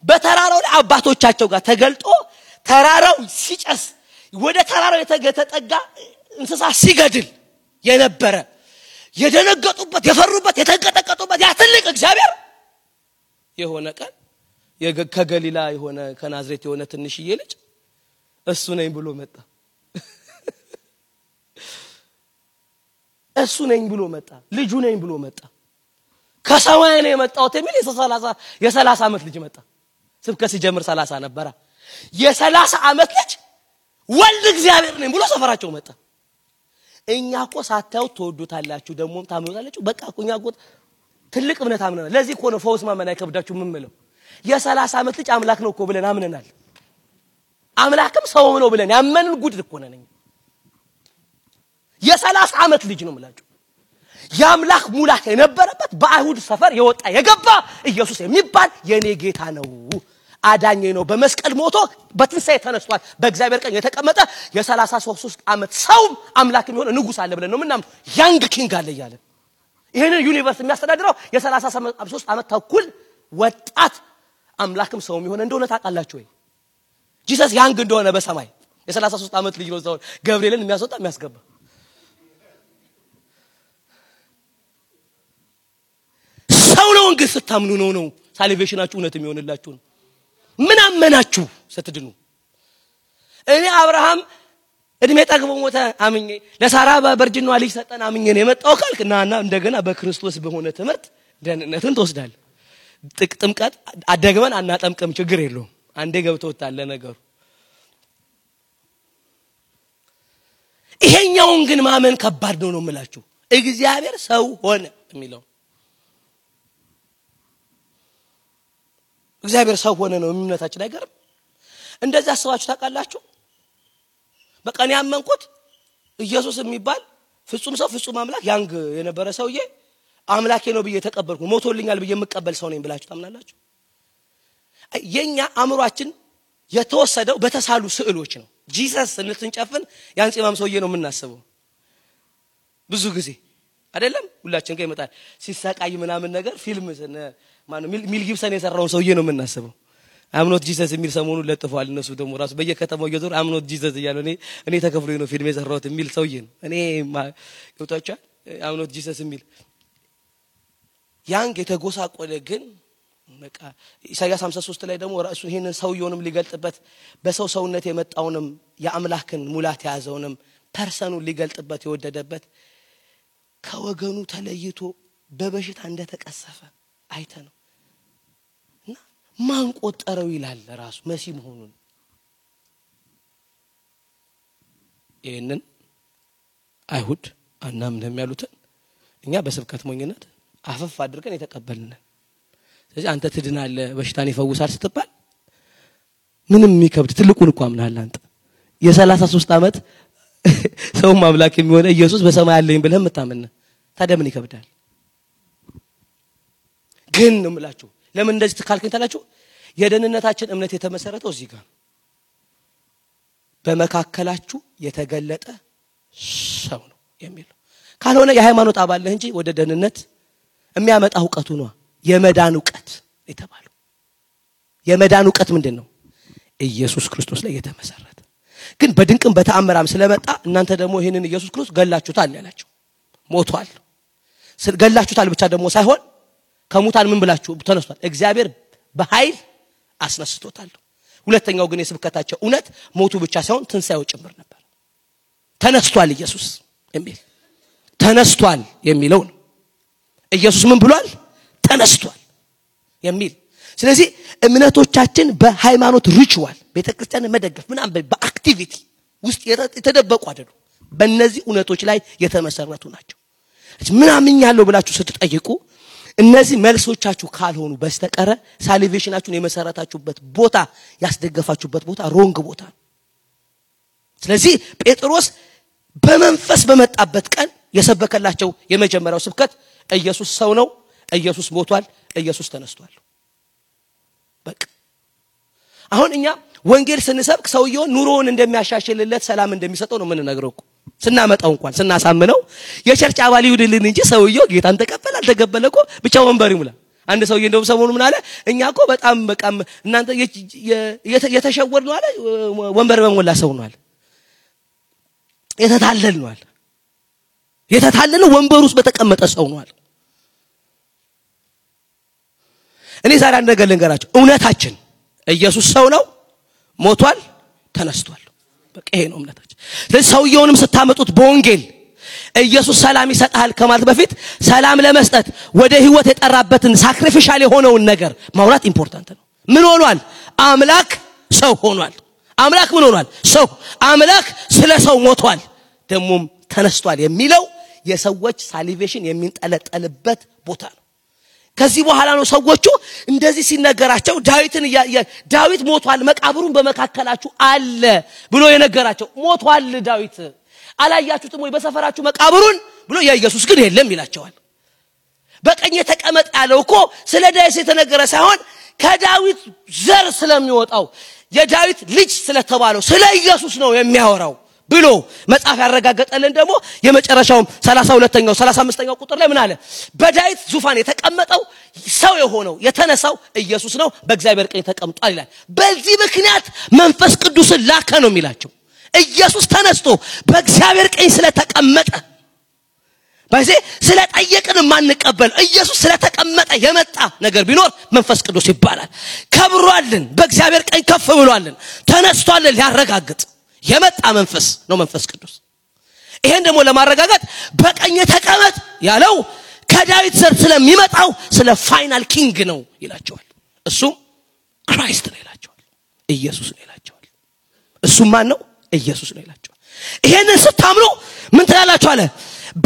በተራራው ላይ አባቶቻቸው ጋር ተገልጦ ተራራው ሲጨስ ወደ ተራራው የተጠጋ እንስሳ ሲገድል የነበረ የደነገጡበት የፈሩበት የተንቀጠቀጡበት ያ ትልቅ እግዚአብሔር የሆነ ቀን ከገሊላ የሆነ ከናዝሬት የሆነ ትንሽዬ ልጅ እሱ ነኝ ብሎ መጣ። እሱ ነኝ ብሎ መጣ። ልጁ ነኝ ብሎ መጣ። ከሰማይ ነው የመጣው የሚል የ30 ዓመት ልጅ መጣ። ስብከት ሲጀምር 30 ነበረ። የ30 ዓመት ልጅ ወልድ እግዚአብሔር ነኝ ብሎ ሰፈራቸው መጣ። እኛኮ ሳታዩ ተወዱታላችሁ ደሞም ታምኑታላችሁ። በቃ እኮ እኛኮ ትልቅ እምነት አምነናል። ለዚህ እኮ ነው ፈውስ ማመን አይከብዳችሁ ምንምለው። የ30 ዓመት ልጅ አምላክ ነው እኮ ብለን አምነናል። አምላክም ሰው ነው ብለን ያመንን ጉድ እኮ ነን። የ30 ዓመት ልጅ ነው ማለት ያምላክ ሙላት የነበረበት በአይሁድ ሰፈር የወጣ የገባ ኢየሱስ የሚባል የኔ ጌታ ነው አዳኝ ነው። በመስቀል ሞቶ በትንሳኤ ተነስቷል። በእግዚአብሔር ቀኝ የተቀመጠ የ33 ዓመት ሰው አምላክ የሚሆን ንጉስ አለ ብለን ነው ምናምን ያንግ ኪንግ አለ ይያለ ይሄን ዩኒቨርስ የሚያስተዳድረው የ33 ዓመት ተኩል ወጣት አምላክም ሰው የሚሆን እንደሆነ ታውቃላችሁ ወይ? ጂሰስ ያንግ እንደሆነ በሰማይ የ33 ዓመት ልጅ ነው ዘው ገብርኤልን የሚያስወጣ የሚያስገባ ሰው ነው። እንግዲህ ስታምኑ ነው ሳልቬሽናችሁ እውነት የሚሆንላችሁ ነው። ምን አመናችሁ ስትድኑ? እኔ አብርሃም እድሜ ጠግቦ ሞተ አምኜ ለሳራ በርጅናዋ ልጅ ሰጠን አምኜ ነው የመጣው ካልክና እንደገና በክርስቶስ በሆነ ትምህርት ደህንነትን ተወስዳል። ጥምቀት አደግመን አናጠምቅም ችግር የለውም። አንዴ ገብቶታል ለነገሩ። ይሄኛውን ግን ማመን ከባድ ነው የምላችሁ። እግዚአብሔር ሰው ሆነ የሚለው እግዚአብሔር ሰው ሆነ ነው እምነታችን አይገርም? እንደዛ አስባችሁ ታውቃላችሁ? በቃ እኔ ያመንኩት ኢየሱስ የሚባል ፍጹም ሰው ፍጹም አምላክ ያንግ የነበረ ሰውዬ አምላኬ ነው ብዬ ተቀበልኩ ሞቶልኛል ብዬ የምቀበል ሰው ነኝ ብላችሁ ታምናላችሁ? የኛ አእምሮአችን የተወሰደው በተሳሉ ስዕሎች ነው። ጂሰስ ስንጨፍን ያን ጺማም ሰውዬ ነው የምናስበው ብዙ ጊዜ አይደለም? ሁላችን ጋር ይመጣል ሲሳቃይ ምናምን ነገር ፊልም ማነው ሚል ጊብሰን የሰራው ሰውዬ ነው የምናስበው። አምኖት ጂሰስ የሚል ሰሞኑ ለጥፏል። እነሱ ደግሞ ራሱ በየከተማው እየዞር አምኖት ጂሰስ እያለ እኔ ተከፍሎኝ ነው ፊልም የሰራሁት የሚል ሰውዬ ነው። እኔ ገብታችኋል? I'm not Jesus የሚል ያንግ የተጎሳቆለ ግን በቃ ኢሳይያስ 53 ላይ ደግሞ ራሱ ይሄንን ሰውየውንም ሊገልጥበት በሰው ሰውነት የመጣውንም የአምላክን ሙላት ያዘውንም ፐርሰኑን ሊገልጥበት የወደደበት ከወገኑ ተለይቶ በበሽታ እንደተቀሰፈ አይተነው እና ማን ቆጠረው ይላል ራሱ መሲህ መሆኑን ይሄንን አይሁድ አናምንም ያሉትን እኛ በስብከት ሞኝነት አፈፍ አድርገን የተቀበልነን ስለዚህ አንተ ትድናለህ በሽታን ይፈውሳል ስትባል ምንም የሚከብድ ትልቁን እኮ አምናለህ አንተ የ33 አመት ሰው ማምላክ የሚሆነ ኢየሱስ በሰማይ አለኝ ብለህ መታመን ታዲያ ምን ይከብዳል ግን ነው የምላችሁ ለምን እንደዚህ ተካልከኝ ታላችሁ የደህንነታችን እምነት የተመሰረተው እዚህ ጋር በመካከላችሁ የተገለጠ ሰው ነው የሚለው ካልሆነ የሃይማኖት አባል ነህ እንጂ ወደ ደህንነት የሚያመጣ ዕውቀቱ ነው የመዳን ዕውቀት የተባለው የመዳን ዕውቀት ምንድነው ኢየሱስ ክርስቶስ ላይ የተመሰረተ ግን በድንቅም በተአምራም ስለመጣ እናንተ ደግሞ ይሄንን ኢየሱስ ክርስቶስ ገላችሁታል ያላችሁ ሞቷል ገላችሁታል ብቻ ደግሞ ሳይሆን ከሙታን ምን ብላችሁ ተነስቷል እግዚአብሔር በኃይል አስነስቶታል ሁለተኛው ግን የስብከታቸው እውነት ሞቱ ብቻ ሳይሆን ትንሳኤው ጭምር ነበር ተነስቷል ኢየሱስ የሚል ተነስቷል የሚለው ነው ኢየሱስ ምን ብሏል ተነስቷል የሚል ስለዚህ እምነቶቻችን በሃይማኖት ሪቹዋል ቤተክርስቲያን መደገፍ ምናምን በአክቲቪቲ ውስጥ የተደበቁ አይደሉም በእነዚህ እውነቶች ላይ የተመሰረቱ ናቸው ምናምን ያለው ብላችሁ ስትጠይቁ እነዚህ መልሶቻችሁ ካልሆኑ በስተቀረ ሳልቬሽናችሁን የመሰረታችሁበት ቦታ ያስደገፋችሁበት ቦታ ሮንግ ቦታ ስለዚህ ጴጥሮስ በመንፈስ በመጣበት ቀን የሰበከላቸው የመጀመሪያው ስብከት ኢየሱስ ሰው ነው ኢየሱስ ሞቷል ኢየሱስ ተነስቷል በቃ አሁን እኛ ወንጌል ስንሰብክ ሰውየው ኑሮውን እንደሚያሻሽልለት ሰላም እንደሚሰጠው ነው የምንነግረው ስናመጣው እንኳን ስናሳምነው የቸርች አባል ይሁንልን እንጂ ሰውየው ጌታን ተቀበል አልተቀበለኮ ብቻ ወንበር ይሙላ አንድ ሰውዬ እንደው ሰሞኑ ምን አለ እኛ እኮ በጣም በቃ እናንተ የተሸወር ነው አለ ወንበር በሞላ ሰው ነው አለ የተታለል ነው አለ የተታለለ ወንበር ውስጥ በተቀመጠ ሰው ነው አለ እኔ ዛሬ አንድ ነገር ልንገራችሁ እውነታችን ኢየሱስ ሰው ነው ሞቷል ተነስቷል በቃ ይሄ ነው እምነታችን ለሰውየውንም ስታመጡት በወንጌል ኢየሱስ ሰላም ይሰጣል ከማለት በፊት ሰላም ለመስጠት ወደ ህይወት የጠራበትን ሳክሪፊሻል የሆነውን ነገር ማውራት ኢምፖርታንት ነው ምን ሆኗል አምላክ ሰው ሆኗል አምላክ ምን ሆኗል ሰው አምላክ ስለ ሰው ሞቷል ደሞም ተነስቷል የሚለው የሰዎች ሳልቬሽን የሚንጠለጠልበት ቦታ ነው ከዚህ በኋላ ነው ሰዎቹ እንደዚህ ሲነገራቸው ዳዊት ሞቷል መቃብሩን በመካከላችሁ አለ ብሎ የነገራቸው ሞቷል ዳዊት አላያችሁትም ወይ በሰፈራችሁ መቃብሩን ብሎ የኢየሱስ ግን የለም ይላቸዋል በቀኝ ተቀመጥ ያለው እኮ ስለ ዳዊት የተነገረ ሳይሆን ከዳዊት ዘር ስለሚወጣው የዳዊት ልጅ ስለተባለው ስለ ኢየሱስ ነው የሚያወራው ብሎ መጽሐፍ ያረጋገጠልን ደግሞ የመጨረሻው 32ኛው 35ኛው ቁጥር ላይ ምን አለ በዳዊት ዙፋን የተቀመጠው ሰው የሆነው የተነሳው ኢየሱስ ነው በእግዚአብሔር ቀኝ ተቀምጧል ይላል በዚህ ምክንያት መንፈስ ቅዱስን ላከ ነው የሚላቸው ኢየሱስ ተነስቶ በእግዚአብሔር ቀኝ ስለተቀመጠ በዚህ ስለጠየቅን ማንቀበል ኢየሱስ ስለተቀመጠ የመጣ ነገር ቢኖር መንፈስ ቅዱስ ይባላል ከብሯልን በእግዚአብሔር ቀኝ ከፍ ብሏልን ተነስቷል ሊያረጋግጥ የመጣ መንፈስ ነው መንፈስ ቅዱስ ይሄን ደግሞ ለማረጋጋት በቀኝ ተቀመጥ ያለው ከዳዊት ዘር ስለሚመጣው ስለ ፋይናል ኪንግ ነው ይላቸዋል እሱ ክራይስት ነው ይላቸዋል ኢየሱስ ነው ይላቸዋል እሱ ማን ነው ኢየሱስ ነው ይላቸዋል ይሄንን ስታምኑ ምን ትላላችሁ አለ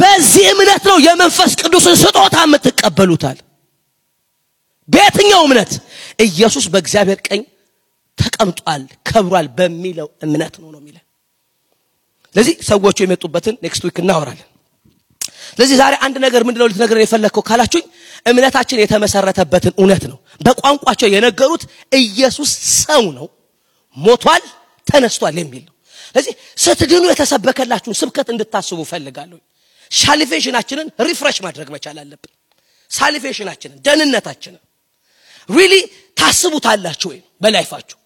በዚህ እምነት ነው የመንፈስ ቅዱስን ስጦታ የምትቀበሉታል በየትኛው እምነት ኢየሱስ በእግዚአብሔር ቀኝ ተቀምጧል ከብሯል በሚለው እምነት ነው የሚለው ለዚህ ሰዎቹ የመጡበትን ኔክስት ዊክ እናወራለን ለዚህ ዛሬ አንድ ነገር ምንድነው ልትነግረን የፈለከው ካላችሁኝ እምነታችን የተመሰረተበትን እውነት ነው በቋንቋቸው የነገሩት ኢየሱስ ሰው ነው ሞቷል ተነስቷል የሚል ነው ለዚህ ስትድኑ የተሰበከላችሁን ስብከት እንድታስቡ ፈልጋለሁ ሳልቬሽናችንን ሪፍሬሽ ማድረግ መቻል አለብን ሳልቬሽናችንን ደህንነታችንን ሪሊ ታስቡታላችሁ ወይ በላይፋችሁ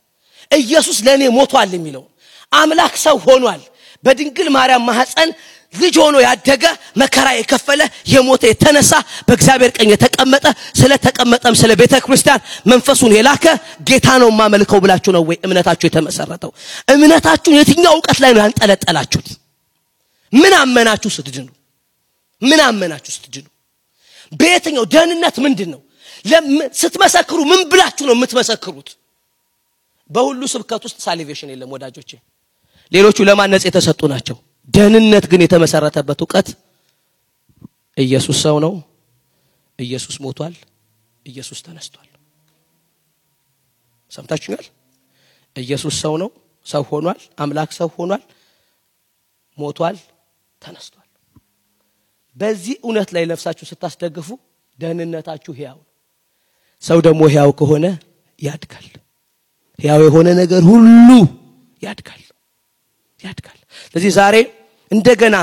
ኢየሱስ ለኔ ሞቷል የሚለው አምላክ ሰው ሆኗል በድንግል ማርያም ማህፀን ልጅ ሆኖ ያደገ መከራ የከፈለ የሞተ የተነሳ በእግዚአብሔር ቀኝ የተቀመጠ ስለተቀመጠም ስለ ቤተክርስቲያን መንፈሱን የላከ ጌታ ነው ማመልከው ብላችሁ ነው ወይ እምነታችሁ የተመሰረተው? እምነታችሁ የትኛው ዕውቀት ላይ ነው ያንጠለጠላችሁት? ምን አመናችሁ ስትድኑ? ምን አመናችሁ ስትድኑ? በየትኛው ደህንነት ምንድነው? ስትመሰክሩ ምን ብላችሁ ነው የምትመሰክሩት? በሁሉ ስብከት ውስጥ ሳሊቬሽን የለም ወዳጆቼ። ሌሎቹ ለማነጽ የተሰጡ ናቸው። ደህንነት ግን የተመሰረተበት ዕውቀት ኢየሱስ ሰው ነው፣ ኢየሱስ ሞቷል፣ ኢየሱስ ተነስቷል። ሰምታችሁኛል? ኢየሱስ ሰው ነው፣ ሰው ሆኗል፣ አምላክ ሰው ሆኗል፣ ሞቷል፣ ተነስቷል። በዚህ እውነት ላይ ለፍሳችሁ ስታስደግፉ ደህንነታችሁ ሕያው ነው። ሰው ደግሞ ሕያው ከሆነ ያድጋል። ሕያው የሆነ ነገር ሁሉ ያድጋል። ስለዚህ ዛሬ እንደገና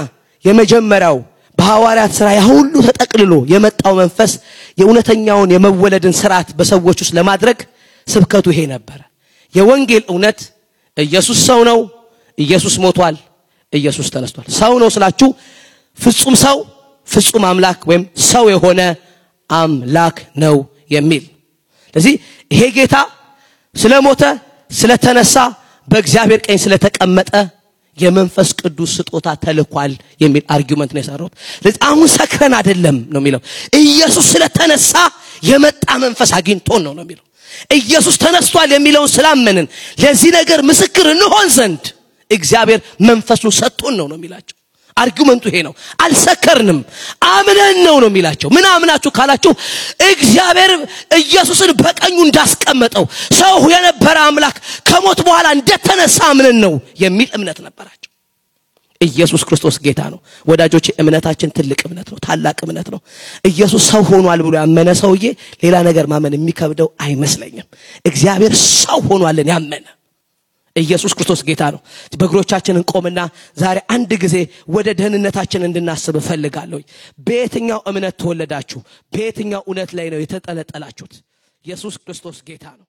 የመጀመሪያው በሐዋርያት ሥራ ሁሉ ተጠቅልሎ የመጣው መንፈስ የእውነተኛውን የመወለድን ሥርዓት በሰዎች ውስጥ ለማድረግ ስብከቱ ይሄ ነበር። የወንጌል እውነት ኢየሱስ ሰው ነው፣ ኢየሱስ ሞቷል፣ ኢየሱስ ተነስቷል። ሰው ነው ስላችሁ ፍጹም ሰው ፍጹም አምላክ ወይም ሰው የሆነ አምላክ ነው የሚል። ስለዚህ ይሄ ጌታ ስለሞተ ስለተነሳ በእግዚአብሔር ቀኝ ስለተቀመጠ የመንፈስ ቅዱስ ስጦታ ተልኳል የሚል አርጊውመንት ነው የሰራው። ስለዚህ አሁን ሰክረን አይደለም ነው የሚለው። ኢየሱስ ስለተነሳ የመጣ መንፈስ አግኝቶን ነው የሚለው። ኢየሱስ ተነስቷል የሚለውን ስላመንን ለዚህ ነገር ምስክር እንሆን ዘንድ እግዚአብሔር መንፈሱን ሰጥቶን ነው የሚላቸው። አርጊውመንቱ ይሄ ነው። አልሰከርንም አምነን ነው የሚላቸው። ምን አምናችሁ ካላችሁ እግዚአብሔር ኢየሱስን በቀኙ እንዳስቀመጠው ሰው የነበረ አምላክ ከሞት በኋላ እንደተነሳ አምነን ነው የሚል እምነት ነበራቸው። ኢየሱስ ክርስቶስ ጌታ ነው ወዳጆቼ። እምነታችን ትልቅ እምነት ነው፣ ታላቅ እምነት ነው። ኢየሱስ ሰው ሆኗል ብሎ ያመነ ሰውዬ ሌላ ነገር ማመን የሚከብደው አይመስለኝም። እግዚአብሔር ሰው ሆኗልን ያመነ ኢየሱስ ክርስቶስ ጌታ ነው። በእግሮቻችን እንቆምና ዛሬ አንድ ጊዜ ወደ ደህንነታችን እንድናስብ ፈልጋለሁ። በየትኛው እምነት ተወለዳችሁ? በየትኛው እውነት ላይ ነው የተጠለጠላችሁት? ኢየሱስ ክርስቶስ ጌታ ነው።